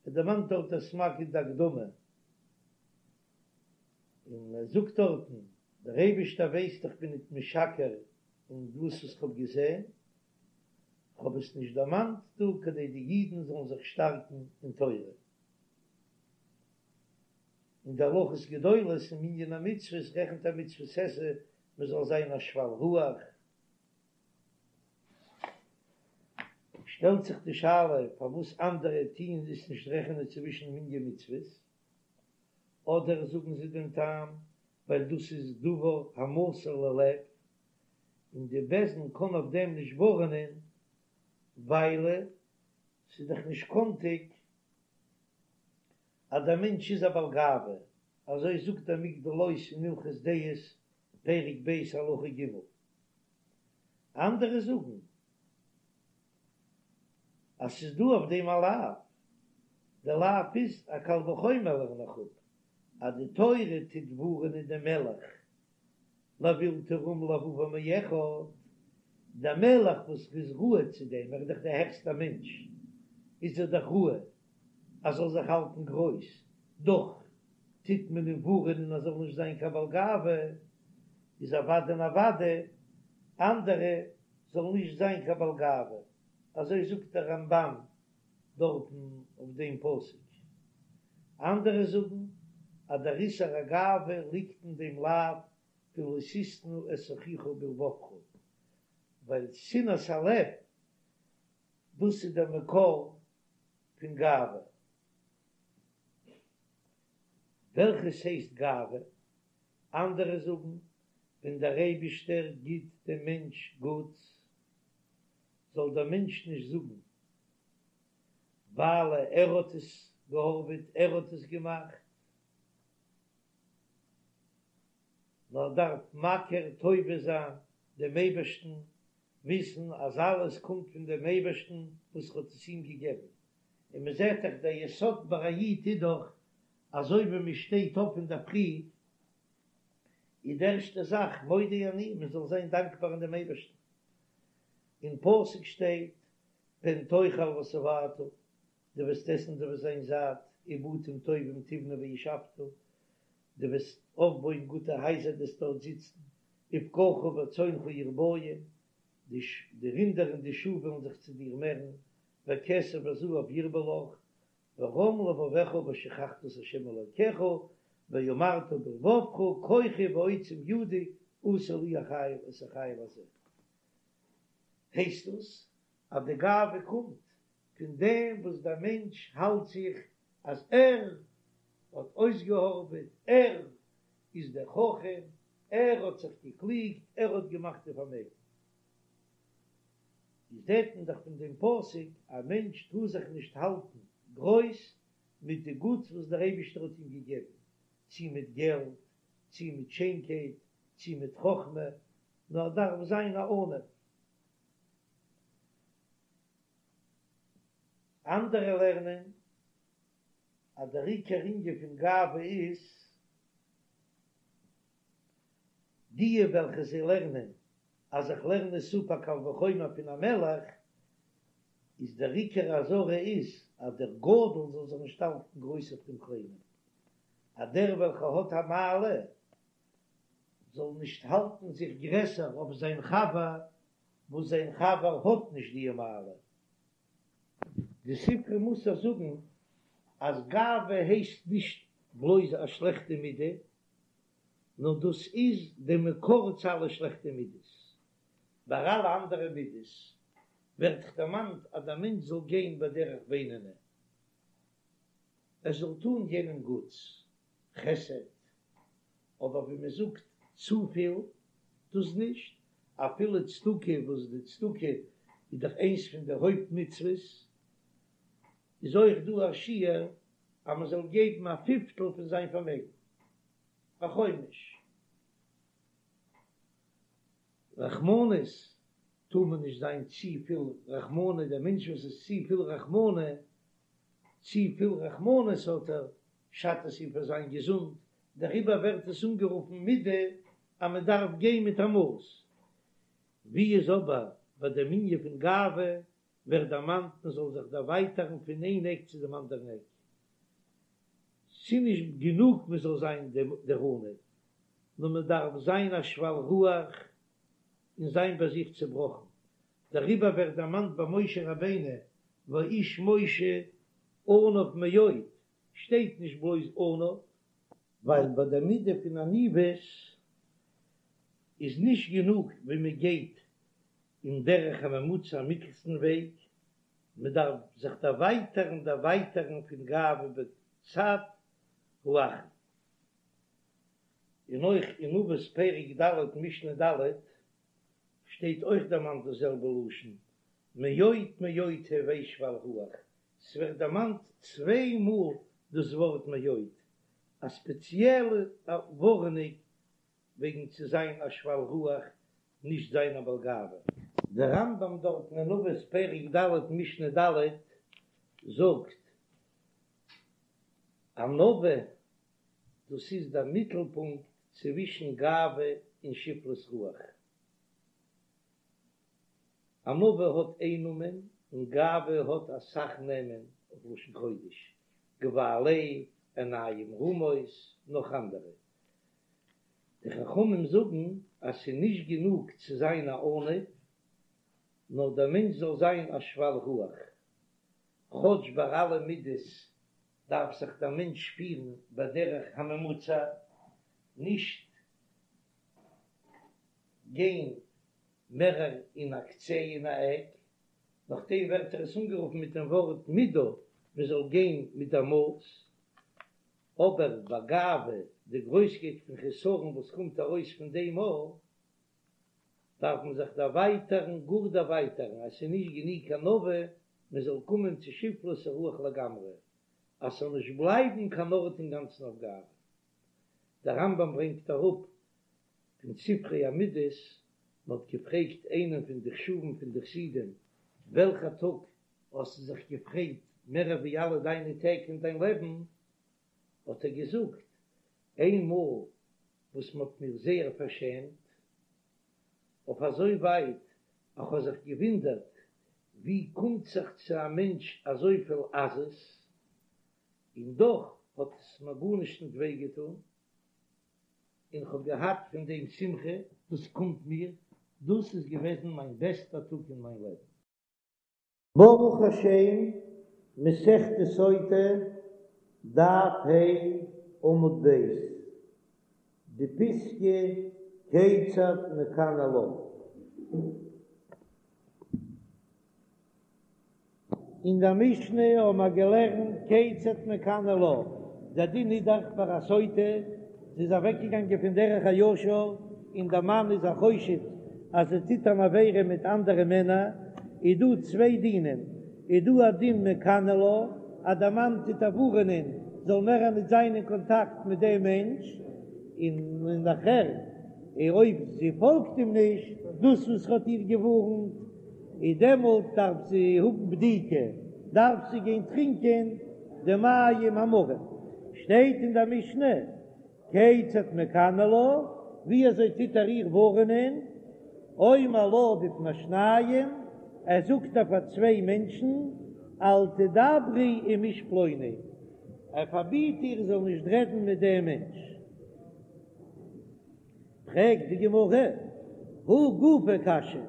ער דערמאנט דארט דער סמ"ג אין די הקדמה, און ער זאגט דארטן, דער אייבערשטער ווייסט איך בין ניט משקר אין דאס וואס כ'האב געזען, כ'האב עס נישט דערמאנט דא כדי די אידן זאלן זיך שטארקן אין תורה. אין די הלכות גדולות אין מנין המצוות רעכנט ער מצוות עשה מען זאל זיין א שפל רוח. שטעלט זיך די שאלה פארוואס אנדערע טוען עס נישט רעכענען צווישן מנין מצוות, אדער זאגן זיי דעם טעם ווייל דאס איז דבר המסור ללב, און די בית דין קען אויף דעם נישט ווארענען ווייל ס'איז דאך נישט קאנטיג אז דער מענטש איז א בעל גאווה, אזוי זאגט דער מגדל עוז אין הלכות דעות פרק ב' הלכה ג'. אנדערע זאגן אז ס'איז דא אויף דעם א לאו, דער לאו איז א קל וחומר לערן איך אפ אז די תורה טוט ווארענען דעם מלך לבלתי רום לבבו מאחד, דער מלך וואס איז ראוי צו דעם, ער איז דאך דער העכסטער מענטש, איז ער דאך ראוי אז זאל זיך האלטן גרויס, דאך טוט מען אים ווארענען אז זאל נישט זיין קיין בעל גאווה, איז אוודאי און אוודאי אנדערע זאלן נישט זיין קיין בעל גאווה, אזוי זאגט דער רמב"ן דארטן אויף דעם פסוק. אנדערע זאגן אז דער איסור הגאווה ליגט אין דעם לאו פון לא תשנא את אחיך בלבבך, ווייל שנאת הלב דאס איז דער מקור פון גאווה. וועלכעס הייסט גאווה? אנדערע זאגן, ווען דער אייבישטער גיט דעם מענטש גוטס, זאל דער מענטש נישט זאגן, ווייל ער האט עס געהארוועט, ער האט עס געמאכט, נאר דארף מכיר טובה זיין דעם אייבערשטן, וויסן אז אלעס קומט פון דעם אייבערשטן וואס האט עס אים געגעבן. און מען זעט דאך דער יסוד ביי א איד איז דאך אזוי ווי מען שטייט אויף אינדערפרי איז די ערשטע זאך מודה אני מען זאל זיין דאנקבאר אין דעם אייבערשטן, אין פסוק שטייט. פן תאכל ושבעת, דו וועסט עסן דו וועסט זיין זאט, ובתים טובים תבנה וישבת, דו וועסט אויפבויען גוטע הייזער דו וועסט דארט זיצן, ובקרך וצאנך ירביון, די רינדער און די שאף וועלן זיך צו דיר מערן, וכסף וזהב ירבה לך, ורם לבבך ושכחת את ה' אלוקיך, ואמרת בלבבך כוחי ועוצם ידי עשו לי החיל את החיל הזה. הייסט דאס אז די גאווה קומט פון דעם וואס דער מענטש האלט זיך אז ער האט אויסגעהארעוועט, ער איז דער חכם, ער האט זיך געקליגט, ער האט געמאכט די פארמעגן. איז זעט מען דאך פון דעם פסוק, א מענטש טאר זיך נישט האלטן גרויס מיט די גוטס וואס דער אייבישטער האט אים געגעבן, צי מיט געלט, צי מיט שיינקייט, צי מיט חכמה, נאר ער דארף זיין א עניו. אנדערע לערנען אז דער עיקר ענין פון גאווה איז די וועלכע זיי לערנען אז איך לערן עס אפ א קל וחומר פון א מלך, איז דער עיקר אזהרה איז אז דער גדול זאל זיך נישט האלטן גרויס אויף דעם קליינעם, אז דער וועלכער האט א מעלה זאל נישט האלטן זיך גרעסער אויף זיין חבר וואס זיין חבר האט נישט די מעלה. די ספרי מוסר זאגן אז גאווה הייסט נישט בלויז א שלעכטע מידה, נאר דאס איז די מקור צו אלע שלעכטע מידות. ביי אלע אנדערע מידות ווערט דאך דערמאנט אז דער מענטש זאל גיין בדרך בינוני, ער זאל טון יענעם גוטס, חסד, אבער ווי מען זאגט צופיל, דאס נישט, אפילו צדקה, וואס די צדקה איז דאך איינס פון די הויפט מצוות, איז אויך דא א שיעור אז מען זאל געבן א פיפטל פון זיין פארמעגן, א חומש. רחמנות טאר מען נישט זיין צופיל רחמנות, דער מענטש וואס איז צופיל רחמנות, צופיל רחמנות האט ער, שאדט עס אים פאר זיין געזונט, דעריבער ווערט עס אנגערופן מידה אז מען דארף גיין מיט א מאס. ווי איז אבער ביי דעם ענין פון גאווה ווערט דערמאנט מען זאל זיך דערווייטערן פון איין עק צו דעם אנדערן עק, ס'נישט גענוג מען זאל זיין דער עניו, נאר מען דארף זיין א שפל רוח און זיין ביי זיך צעבראכן, דעריבער ווערט דערמאנט ביי משה רבינו והאיש משה עניו מאוד, שטייט נישט בלויז עניו, ווייל ביי דער מידה פון עניוות איז נישט גענוג ווען מען גייט אין דרך הממוצע א מיטלסטן וועג, מען דארף זיך דערווייטערן דערווייטערן פון גאווה בצד האחרון. און אויך אין אבות פרק ד' משנה ד' שטייט אויך דערמאנט דאס זעלבע לשון מאוד מאוד הוי שפל רוח, ס'ווערט דערמאנט צוויי מאל דאס ווארט מאוד, א ספעציעלע ווארענונג וועגן צו זיין א שפל רוח, נישט זיין א בעל גאווה. דער רמב"ם דארטן אין אבות פרק ד' משנה ד' זאגט, ענווה דאס איז דער מיטלפונקט צווישן גאווה און שפלות רוח. ענווה האט איין נאמען און גאווה האט אסאך נעמען אויף לשון קודש, גבה לב, עיניים רמות, נאך אנדערע. די חכמים זאגן אז ס'איז נישט גענוג צו זיין א עניו, נאר דער מענטש זאל זיין א שפל רוח. כאטש ביי אלע מידות דארף זיך דער מענטש פירן בדרך הממוצע, נישט גיין מערער אין א קצה אין א עק, נאכדעם ווערט ער עס אנגערופן מיט דעם ווארט מידה, מען זאל גיין מיט דער מאס, אבער ביי גאווה, די גרויסקייט פון חסרון וואס קומט ארויס פון דעם מאל, דארף מען זיך דערווייטערן, גאר דערווייטערן, אז ס'איז נישט גענוג ענווה, מען זאל קומען צו שפלות הרוח לגמרי, אז ס'זאל נישט בלייבן קיין ארט אינגאנצן אויף גאווה. דער רמב"ם ברענגט אראפ פון ספרי המידות, מען האט געפרעגט איינעם פון די חשובים פון די חסידים, וועלכע טאג האסטו זיך געפרייט מער ווי אלע דיינע טעג אין דיין לעבן? האט ער געזאגט, איין מאל וואס מען האט מיר זייער פארשעמט, אויף אזוי ווייט אז כ'האב זיך געוואונדערט. ווי קומט זיך צו א מענטש אזויפיל עזות, און דאך האט עס מיר גארנישט ניט וויי געטאן, און כ'האב געהאט פון דעם שמחה, דאס קומט מיר, דאס איז געוועזן מיין בעסטער טאג אין מיין לעבן. ברוך השם, מסכת סוטה, דף ה', עמוד ב', די פיסקא כיצד מקנא לה. אין דער משנה האבן מיר געלערנט כיצד מקנא לה, דער דין איז דאך ביי א סוטה, זי איז אוועקגעגאנגען פון דרך הישר און דער מאן איז א חושד אז זי טוט אן עבירה מיט אנדערע מענער, איז דא צוויי דינים, איז דא א דין מקנא לה אז דער מאן טוט איר ווארענען זאל מער ניט זיין אין קאנטאקט מיט דעם מענטש, און נאכער אויב זי פאלגט אים נישט, דאס וואס ער האט איר געווארנט, איז דעמאלט דארף זי האבן בדיקה, דארף זי גיין טרינקען די מים המרים. שטייט אין דער משנה, כיצד מקנא לה, ווי אזוי טוט ער איר ווארענען, אומר לה בפני שניים, ער זאגט איר פאר צוויי מענטשן, אל תדברי עם איש פלוני, ער פארביט איר זי זאל נישט רעדן מיט דעם מענטש. פרעגט די גמרא, הא גופא קשיא,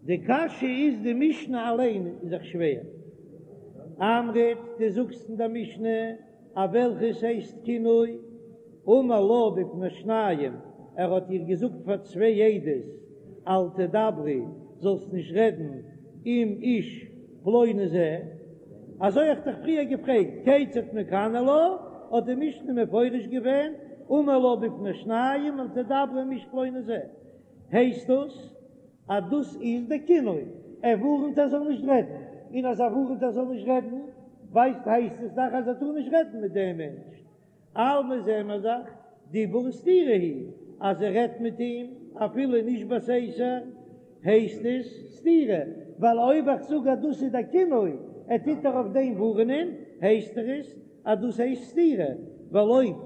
די קשיא איז די משנה אליין איז דאך שווער. אמרת, דו זאגסט אין די משנה אז וועלכעס הייסט קינוי, אמר לה בפני שניים, ער האט איר געזאגט פאר צוויי עדות, אל תדברי, זאלסט נישט רעדן עם איש פלוני זה, אזוי האב איך דיך פריער געפרעגט, כיצד מקנא לה, האט די משנה מפרש געווען, אמר לה בפני שניים אל תדברי עם איש פלוני זה, הייסט דאס אז דאס איז די קינוי, ער ווארענט ער זאל נישט רעדן, און אז ער ווארענט ער זאל נישט רעדן, ווייסט הייסט עס דאך אז ער טאר נישט רעדן מיט דעם מענטש, אלמא זעען מיר דאך דיבור סתירה היא, אז ער רעדט מיט אים אפילו נישט בסתר הייסט עס סתירה, ווייל אויב איך זאג אז דאס איז די קינוי, ער טוט איר אויף דעם ווארענען, הייסט עס אז דאס הייסט סתירה, ווייל אויב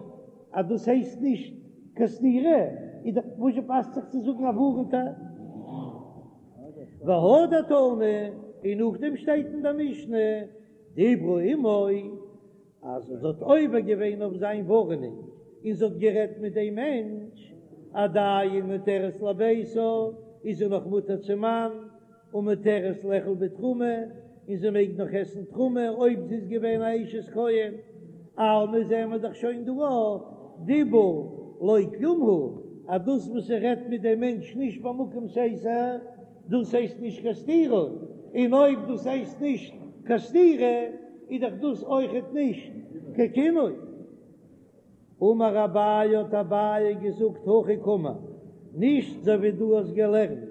אז דאס הייסט נישט קיין סתירה, איז דאך וואזשע פאסט זיך צו זאגן ער ווארענט איר. והדר תני, און נאכדעם שטייט אין דער משנה, דיברה עמו, אז זי האט עובר געווען אויף זיין ווארענונג און זי האט גערעדט מיט דעם מענטש, עדיין מותרת לביתה, איז זי נאך מותר צום מאן, ומותרת לאכול בתרומה, און זי מעג נאך עסן תרומה אויב זי איז געווען א אשת כהן. אלמא זעען מיר דאך שוין דא אויך, דיבור לא כלום הוא, אז דאס וואס זי רעדט מיט דעם מענטש נישט במקום סתר, דאס הייסט נישט קיין סתירה, און אויב דאס הייסט נישט קיין סתירה, איז דאך דאס אויכעט נישט קיין קינוי. אמר אביי האט אביי געזאגט הכי קאמר, נישט אזוי ווי דו האסט געלערנט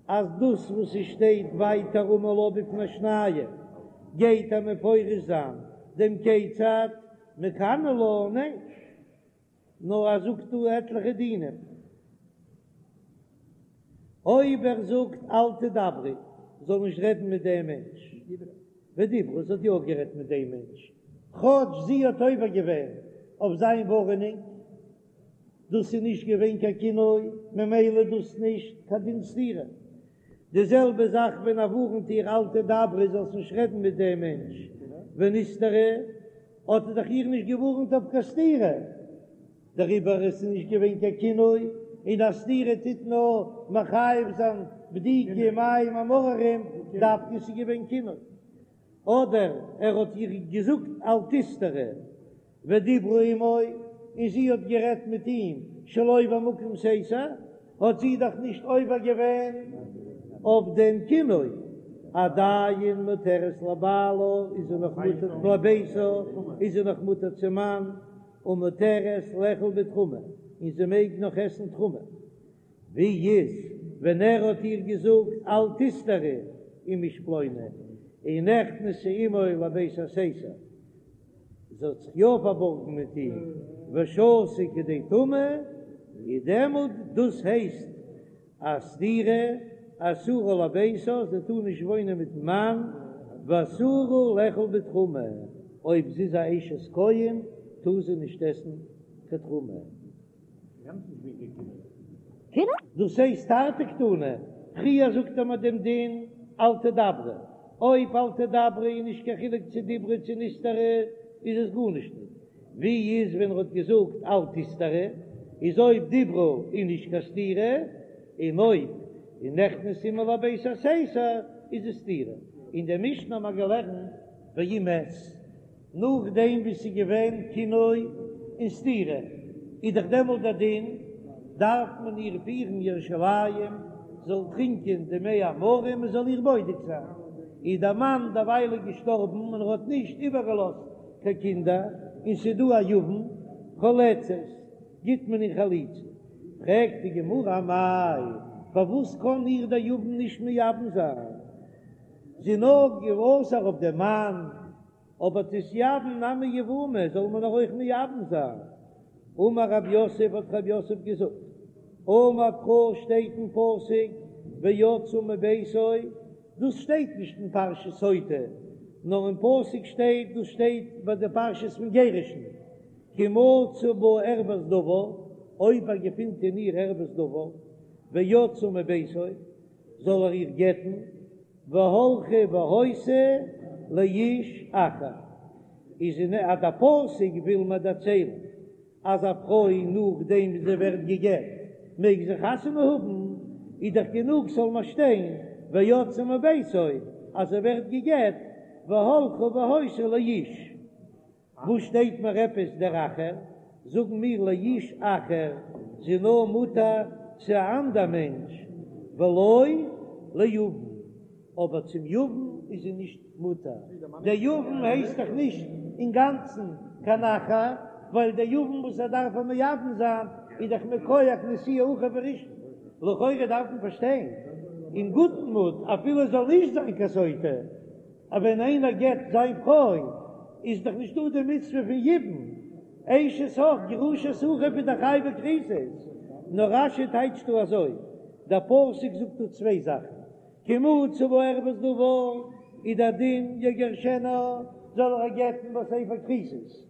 אז דאס וואס עס שטייט ווייטער אמר לה בפני שניים גייט ער מפרש זיין דעם כיצד מקנא לה, ניין, נאר ער זאגט דא עטליכע דינים. אויב ער זאגט אל תדברי, זאל נישט רעדן מיט דעם מענטש, ודיברה, זי האט יא גערעדט מיט דעם מענטש, כאטש זי האט עובר געווען אויף זיין ווארענונג, דאס איז נישט געווען קיין קינוי, ממילא דאס נישט קיין דין סתירה. די זעלבע זאך ווען ער ווארענט איר אל תדברי זאלסט נישט רעדן מיט דעם מענטש, ונסתרה, האט ער דאך איר נישט געווארענט אויף קיין סתירה, דעריבער איז עס נישט געווען קיין קינוי, און א סתירה טוט נאר מחייב זיין בדיקה מים המאררים, דווקא ס'איז געווען קינוי. אדער ער האט איר געזאגט אל תסתרי ודיברה עמו, און זי האט גערעדט מיט אים שלא במקום סתר, האט זי דאך נישט עובר געווען אויף דעם קינוי, עדיין מותרת לבעלה איז זי נאך מותר לביתה איז זי נאך מותר צום מאן, ומותרת לאכול בתרומה, און זי מעג נאך עסן תרומה. ווי איז ווען ער האט איר געזאגט אל תסתרי עם איש פלוני, און נכנסה עמו לבית הסתר, זי האט זיך יא פארבארגן מיט אים, ושהתה כדי טומאה, איז דעמאלט דאס הייסט א סתירה, אסורה לביתה, זי טאר נישט וואוינען מיטן מאן, ואסורה לאכול בתרומה, אויב זי איז א אשת כהן טאר זי נישט עסן קיין תרומה. דאס הייסט תרתי קתני, פריער זאגט ער מיר דעם דין. אל תדברי, אויב אל תדברי איז נישט קיין חילוק צו דיברה צו נסתרה איז עס גארנישט ניט, ווי איז ווען ער האט געזאגט אל תסתרי, איז אויב דיברה איז נישט קיין סתירה, און אויב איז נכנס עמה לבית הסתר איז עס סתירה. אין דער משנה האט מען געלערנט ואם מת. נאכדעם ווי ס'איז געווען קינוי און סתירה, איז דאך דעמאלט דער דין, דארף מען איר פירן ירושלים, זאל טרינקען די מי המרים, מען זאל איר בודק זיין. איז דער מאן דערווייל געשטארבן און ער האט נישט איבערגעלאזט קיין קינדער, און ס'איז דא א יבם, חולצת, גיט מען איר חליצה. פרעגט די גמרא אמאי, פארוואס קען איר דער יבם נישט מייבם זיין? זי איז נאר אסור אויף דעם מאן. אבער תתייבם נמי יבומי זאל מען איר אויך מייבם זיין. אמר רב יוסף האט רב יוסף געזאגט, אמר קרא שטייט אין פסוק ויצאה מביתו, דאס שטייט נישט אין פרשת סוטה, נאר אין פסוק שטייט, דאס שטייט ביי די פרשת פון גירושין, כי מצא בה ערות דבר, אויב ער געפינט אין איר ערות דבר, ויצאה מביתו, זאל ער איר גט'ן, והלכה והיתה לאיש אחר, איז אין אז דער פסוק וויל מיר דערציילן אז א פרוי נאכדעם ווי זי ווערט גע'גט מעג זי חתונה האבן, איז דאך גענוג ס'זאל מיר שטיין ויצאה מביתו אז זי ווערט גע'גט והלכה והיתה לאיש. וואס שטייט מיר עפעס דער אחר? זאגן מיר לאיש אחר, זי איז נאר מותר צו א אנדער מענטש, ולא ליבם, אבער צום יבם איז זי נישט מותר, דער יבם הייסט דאך נישט אינגאנצן קיין אחר, ווייל דער יבם וואס ער דארף איר מייבם זיין איז דאך מכח נשיאי אחיו הראשון, לכאורה דארף מען פארשטיין אין גוטן מוט אפילו עס זאל נישט זיין קיין סוטה, אבער ווען איינער גט זיין פרוי איז דאך נישט דא די מצוה פון יבום, אשת אח גרושת אחיו איז דאך חייבי כריתות, נאר רש"י טייטשט דא אזוי, דער פסוק זאגט דא צוויי זאכן, כי מצא בה ערות דבר איז דער דין יגרשנה זאל ער איר גט'ן בספר כריתות,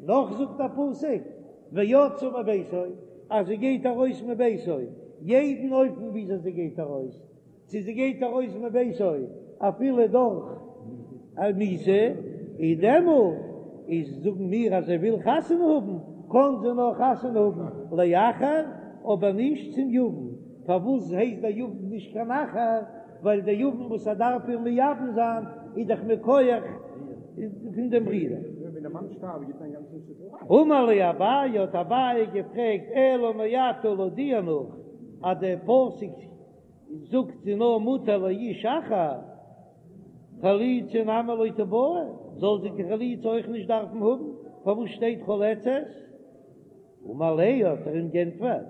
נאך זאגט א פסוק ויצאה מביתו אז זי גייט ארויס מביתו, יעדן אופן וויאזוי זי גייט ארויס, צו זי גייט ארויס מביתו אפילו דורך א מיתה, איז דעמאלט איז זאגן מיר אז זי וויל חתונה האבן, קען זי נאר חתונה האבן לאחר, אבער נישט צום יבם, פארוואס הייסט דער יבם נישט קיין אחר? ווייל דער יבם וואס ער דארף איר מייבם זיין איז דאך מכח פון דעם ברודער. אמר ליה אביי, האט אביי געפרעגט, אלא מעתה לויט דיר נאך אז דער פסוק זאגט זי נאר מותר לאיש אחר, חליצה נמי לא תיבעי, זאל זי קיין חליצה אויך נישט דארפן האבן, פארוואס שטייט חולצת? אמר ליה האט ער אים גענטפערט,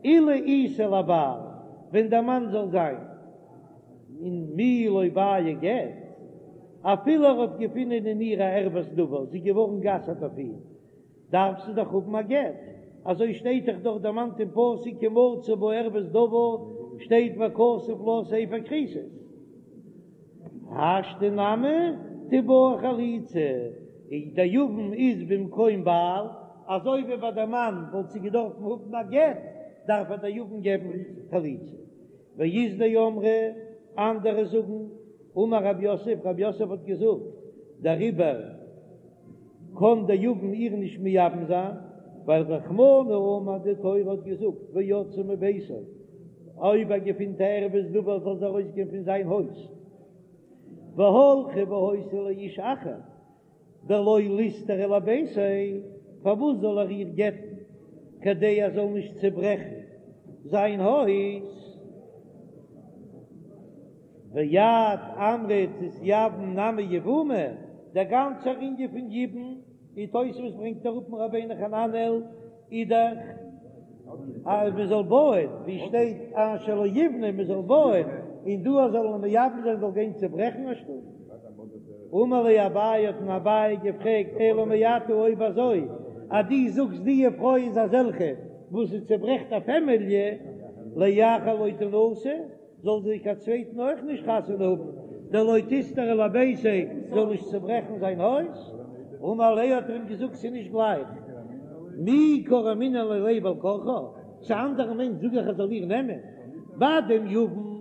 אילו איתיה לבעל, ווען דער מאן זאל זיין און מי לא בעי גט, אפילו ער האט געפונען אין איר א ערות דבר, זי איז געווארן גע'אסר'ט אויף אים, דארף זי דאך האבן א גט, אזוי שטייט דאך דארט דערמאנט אין פסוק כי מצא בה ערות דבר, שטייט וכתב לה ספר כריתות. השתא נמי תיבעי חליצה, און דער יבם איז במקום בעל, אזוי ווי ביי דער מאן וואלט זי געדארפן האבן א גט, דארף איר דער יבם געבן חליצה. ואית דאמרי, אנדערע זאגן, אמר רב יוסף, רב יוסף האט געזאגט, דעריבער קען דער יבם איר נישט מייבם זיין, ווייל רחמנא אמר די תורה האט געזאגט ויצאה מביתו, אויב ער געפינט א ערות דבר זאל זי ארויסגיין פון זיין הויז, והלכה והיתה לאיש אחר, דלא ליסתריה לביתיה, פארוואס זאל ער איר גט'ן כדי ער זאל נישט צעברעכן זיין הויז? ואת אמרת תתייבם נמי יבומי, דער גאנצער ענין פון יבום, ווי תוספות ברענגט אראפ פון רבינו חננאל, איז דאך אז מען זאל בויען, ווי שטייט אשר לא יבנה מען זאל בויען, און דא אז זאל מען מייבם זיין זאל גיין צוברעכן א שטוב. אמר ליה אביי האט אים אביי געפרעגט אלא מעתה אויב אזוי אז דו זאגסט די פרוי איז אזעלכע וואס זי צוברעכט א פעמיליע, לאחר לא תנשא, זאל זי קיין צווייטן אויך נישט חתונה האבן, דלא תיסתריה לביתיה, זאל נישט צוברעכן זיין הויז. אמר ליה האט ער אים געזאגט ס'איז נישט גלייך, מי קא רמינא ליה בעל כרחה, צו אנדערן מענטש זאג איך ער זאל איר נעמען, ביי דעם יבם.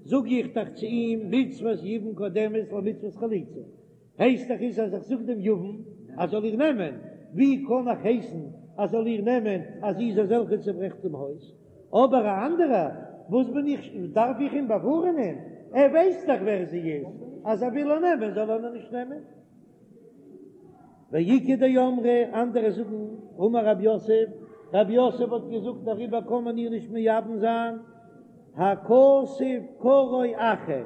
זאג איך דאך צו אים מצוות יבום קודמת למצוות חליצה, הייסט דאך איז אז איך זאג דעם יבם אז זאל איר נעמען, ווי קען איך הייסן אז זאל איר נעמען אז זי איז אזעלכע צוברעכט דעם הויז? אבער א אנדערע, וואס בין איך, דארף איך אים באווארענען? ער ווייסט דאך ווער זי איז, אז ער וויל איר נעמען זאל ער איר נישט נעמען. ואיכא דאמרי, אנדערע זאגן, אמר רב יוסף, רב יוסף האט געזאגט דעריבער קען מען איר נישט מייבם זיין, הכתוב קראו אחר,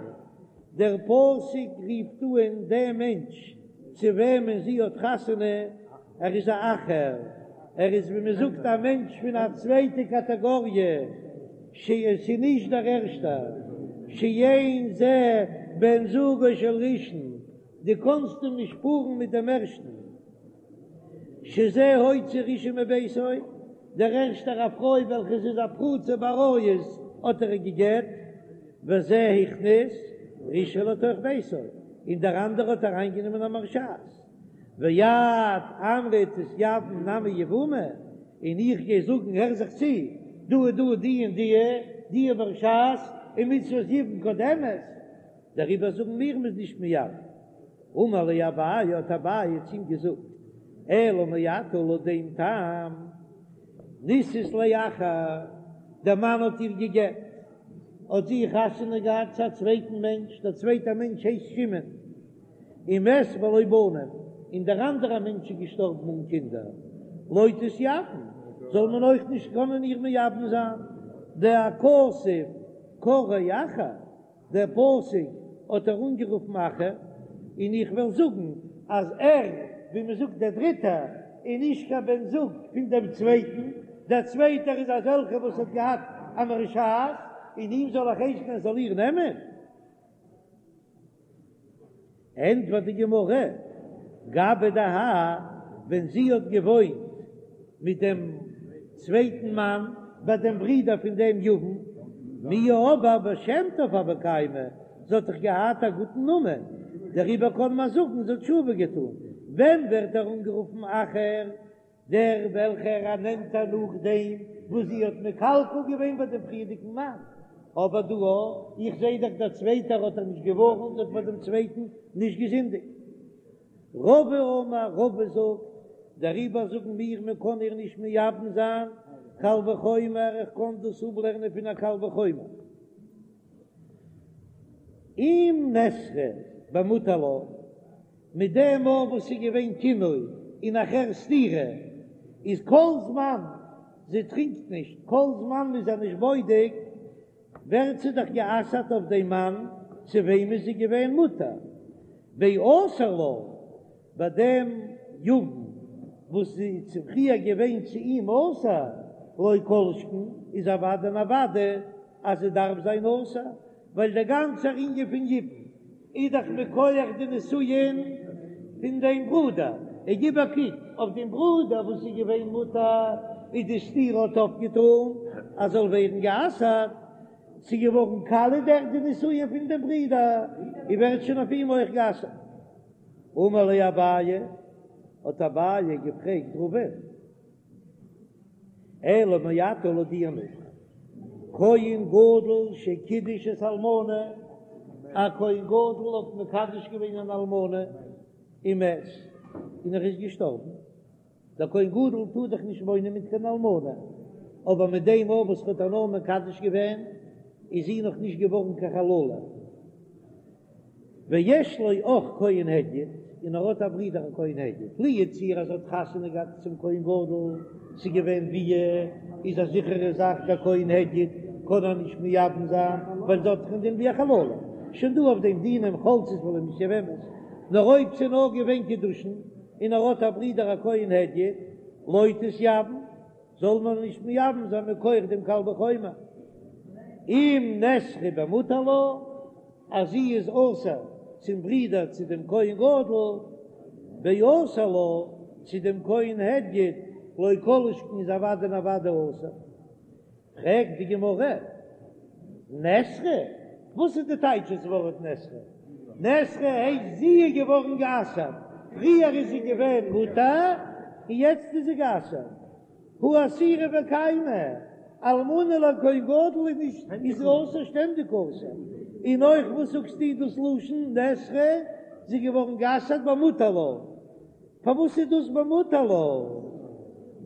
דער פסוק רופט אן דעם מענטש צו וועמען זי האט חתונה, ער איז א אחר, ער איז ווי מען זאגט א מענטש פון א צווייטע קאטעגאריע, ש עס איז נישט דער ערשטער, שאין זה בן זוגו של ראשון, דו קאנסט אים נישט פארן מיט דעם ערשטן, שזה הוציא ראשון מביתו, דער ערשטער א פרוי וועלכע איז א פרוצה בעריות האט ער גע'גט, וזה הכניס ראשון לתוך ביתו, און דער אנדערער האט אריינגענומען א מרשעת, ואת אמרת תתייבם נמי יבומי, און איך גיי זאגן הער זיך צו, דא איז דא די און די, די מרשעת, און מצוות יבום קודמת, דעריבער זאגן מיר מ'איז נישט מייבם. אמר ליה אביי, האט אביי צו אים געזאגט, אלא מעתה לויט דעם טעם, נישאת לאחר, דער מאן האט איר גע'גט, האט זי חתונה געהאט צו א צווייטן מענטש, דער צווייטער מענטש הייסט שמעון, ומת בלא בנים, און דער אנדערער מענטש איז געשטארבן אן קינדער, לא תתייבם, זאל מען אויך נישט קענען איר מייבם זיין, דהכתוב קראו אחר. דער פסוק האט ער אנגערופן אחר, און איך וועל זאגן אז ער, ווי מען זאגט דער דריטער, איז נישט קיין בן זוג פון דעם צווייטן, דער צווייטער איז אזעלכער וואס האט געהאט א מרשעת, און אים זאל איך הייסן ער זאל איר נעמען? ענטפערט די גמרא, גבי דהאי, ווען זי האט געוואוינט מיט דעם צווייטן מאן, ביי דעם ברודער פון דעם יבם, מיהא אבער בשם טוב הוה קיימא, זי האט דאך געהאט א גוטן נאמען, דעריבער קען מען זאגן זי האט תשובה געטאן. ווען ווערט ער אנגערופן אחר? דער וועלכער ער נעמט איר נאכדעם וואס זי האט מקלקל געווען ביי דעם פריערדיגן מאן, אבער דא איך זעה דאך דער צווייטער האט איר נישט געווארנט האט ביי דעם צווייטן נישט געזינדיגט. רבא אמר, רבא זאגט, דעריבער זאגן מיר מען קען איר נישט מייבם זיין, קל וחומר, איך קען דאס אפלערנען פון א קל וחומר. אם נאסרה במותר לה, מיט דעם מאל וואס ס'איז געווען קינוי און נאכהער סתירה, איז כל זמן זי טרינקט נישט, כל זמן מ'איז איר נישט בודק, ווערט זי דאך גע'אסר'ט אויף דעם מאן צו וועם איז זי געווען מותר, באסור לה, ביי דעם יבם וואס זי איז פריער געווען צו אים אסור, לא כל שכן איז אוודאי און אוודאי אז זי דארף זיין אסור, ווייל דער גאנצער ענין פון יבום איז דאך מכח די נישואין פון דעם ברודער, און גיב א קוק אויף דעם ברודער וואס איז געווען מותר, איז די סתירה האט אויפגעטאן אז זאל ווערן גע'אסר'ט, ס'איז געווארן קאליע דורך די נישואין פון דעם ברודער, און ווערט שוין אויף אים אויך גע'אסר'ט. אמר ליה אביי, האט אביי געפרעגט רבא'ן, אלא מעתה לויט דיר נאך, כהן גדול שקידש את האלמנה, א כהן גדול האט מקדש געווען אן אלמנה ומת, און ער איז געשטארבן, דער כהן גדול טאר דאך נישט וואוינען מיט קיין אלמנה, אבער מיט דעם מאל וואס ער האט איר נאר מקדש געווען, איז זי נאך נישט געווארן קיין חללה. ויש לו אח כהן הדיוט, און ער האט א ברודער א כהן הדיוט, לו יצויר אז ער האט חתונה געהאט צום כהן גדול, ס'איז געווען ביאה, איז א זיכערע זאך דער כהן הדיוט קען איר נישט מייבם זיין, ווייל זי האט דאך א דין ווי א חללה, שוין דא אויף דעם דינים חולצות ולא מתייבמות, נאר אויב ס'איז נאר געווען קידושין, און ער האט א ברודער א כהן הדיוט, לא תתייבם, זאל מען נישט מייבם זיין מכח דעם קל וחומר, אם נאסרה במותר לה, אז זי איז אסור צום ברודער צו דעם כהן גדול, באסור לה, צו דעם כהן הדיוט, לא כל שכן איז אוודאי און אוודאי אסור. פרעגט די גמרא, נאסרה? וואס איז די טייטש דאס ווארט נאסרה? נאסרה הייסט זי איז געווארן גע'אסר'ט, פריער איז זי געווען מותר און יעצט איז זי גע'אסר'ט. הא אסירא וקיימא, אלמנה לכהן גדול איז נישט איז אסור שטענדיג אסור. און אויך וואס זאגסטו דאס לשון נאסרה, זי איז געווארן גע'אסר'ט במותר לה, פארוואס איז דאס במותר לה?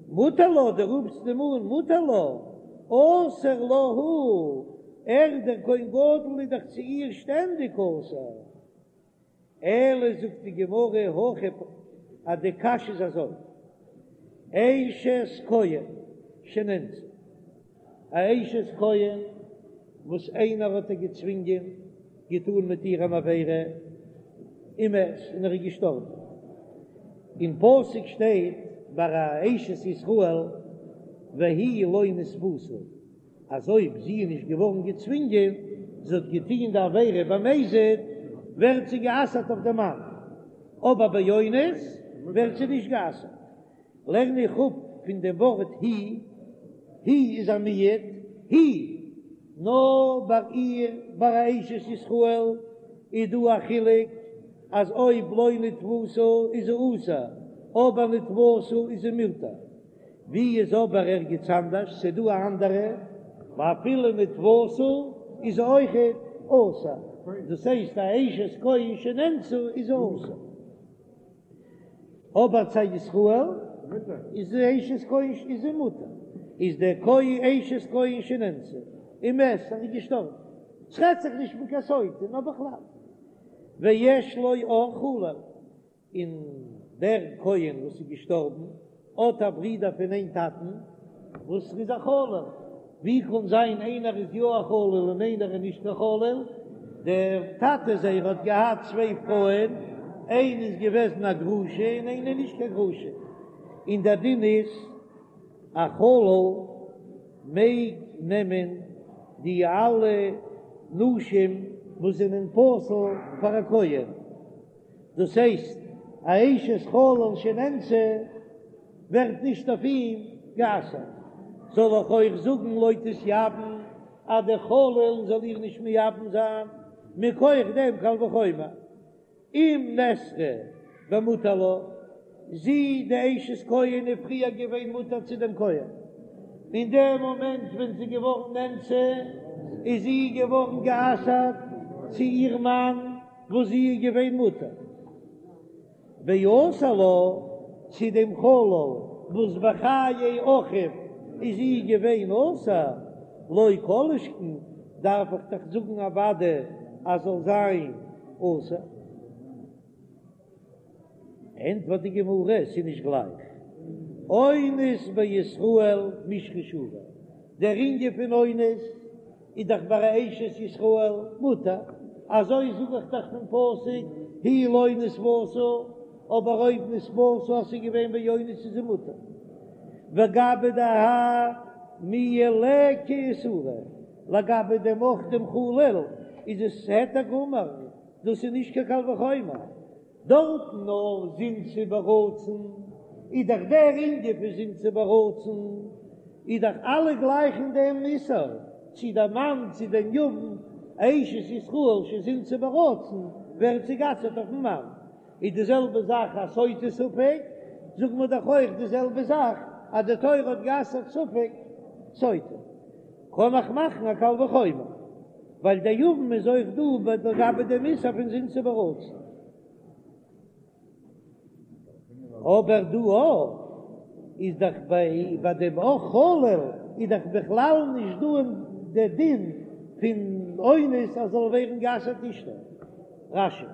מותר לה, דו רופסט אים אן מותר לה, אסור לה הוא, ער דער כהן גדול איז דאך צו איר שטענדיג אסור. אלא זאגט די גמרא הכי אז די קשיא איז אזוי, אשת כהן שנאנסה, א אשת כהן וואס איינער האט איר געצווינגען, געטאן מיט איר אן עבירה, ומת, און ער איז געשטארבן, אין פסוק שטייט ביי א אשת ישראל והיא לא נתפשה, אז אויב זי איז נישט געווארן געצווינגען, זי האט געטון די עבירה במזיד, ווערט זי גע'אסר'ט אויף דעם מאן, אבער באונס ווערט זי נישט גע'אסר'ט. לערן איך אפ פון דעם ווארט היא, היא איז א מיעוט, היא, נאר ביי איר, ביי א אשת ישראל, איז דא א חילוק אז אויב לא נתפשה איז זי אסור, אבער נתפשה איז זי מותר. ווי איז אבער ערגעץ אנדערש ס'דא א אנדערע ואפילו נתפשה איז זי אויכעט אסור, דאס הייסט א אשת כהן שנאנסה איז זי אסור, אבער צו א ישראל איז די אשת כהן איז זי מותר, איז דער כהן אשת כהן שנאנסה ומת ער איז געשטארבן, ס'רעדט זיך נישט פון קיין סוטה נאר בכלל, ויש לו אח חלל. און דער כהן וואס איז געשטארבן האט א ברודער פון איין טאטן וואס איז א חלל, ווי קען זיין איינער איז יא א חלל און איינער איז נישט קיין חלל? דער טאטע זייער האט געהאט צוויי פרויען, איינע איז געוועזן א גרושה און איינע נישט קיין גרושה, און דער דין איז א חלל מעג נעמען די אלע נשים וואס זענען פסול פאר א כהן. דאס הייסט א אשת חלל שנאנסה ווערט נישט אויף אים גע'אסר'ט, זאל איך אויך זאגן לא תתייבם אז דער חלל זאל איר נישט מייבם זיין מכח דעם קל וחומר אם נאסרה במותר לה, זי די אשת כהן איז פריער געווען מותר צו דעם כהן, אין דעם מאמענט ווען זי איז געווארן נאנסה איז זי געווארן גע'אסר'ט צו איר מאן, וואס זי איז געווען מותר ואסור לה צו דעם חלל וואס בחיי אחיו איז זי געווען אסור, לא כל שכן דארף איך דאך זאגן אוודאי אז זאל זיין אסור. ענטפערט די גמרא, ס'איז נישט גלייך, אונס בישראל מישרא שרי, דער ענין פון אונס איז דאך ביי א אשת ישראל מותר, אזוי זאג איך דאך פון פסוק היא לא נתפשה, אבער אויב נתפשה אז ס'איז געווען באונס איז זי מותר, וגבי דהאי מיהא ליכא איסורא, לגבי דעם אח דעם חלל איז עס היתר גמור, דאס איז נישט קיין קל וחומר. דארטן נאר זינתה ברצון, איז דאך דער ענין פון זינתה ברצון, איז דאך אלע גלייך אין דעם איסור, צו דער מאן צו דעם יבם, אשת ישראל שזינתה ברצון, ווערט זי גע'אסר'ט אויפן מאן, איז די זעלבע זאך א סוטה ספק, זאגן מיר דאך אויך די זעלבע זאך אז די תורה האט גע'אסר'ט ספק סוטה. קען איך מאכן א קל וחומר, ווייל דער יבם איז אויך דא ביי לגבי דעם איסור פון זינתה ברצון. אבער דא אויך איז דאך ביי ביי דעם אח חלל איז דאך בכלל נישט דא אין די דין פון אונס אז זאל ווערן גע'אסר'ט אשתו. רש"י.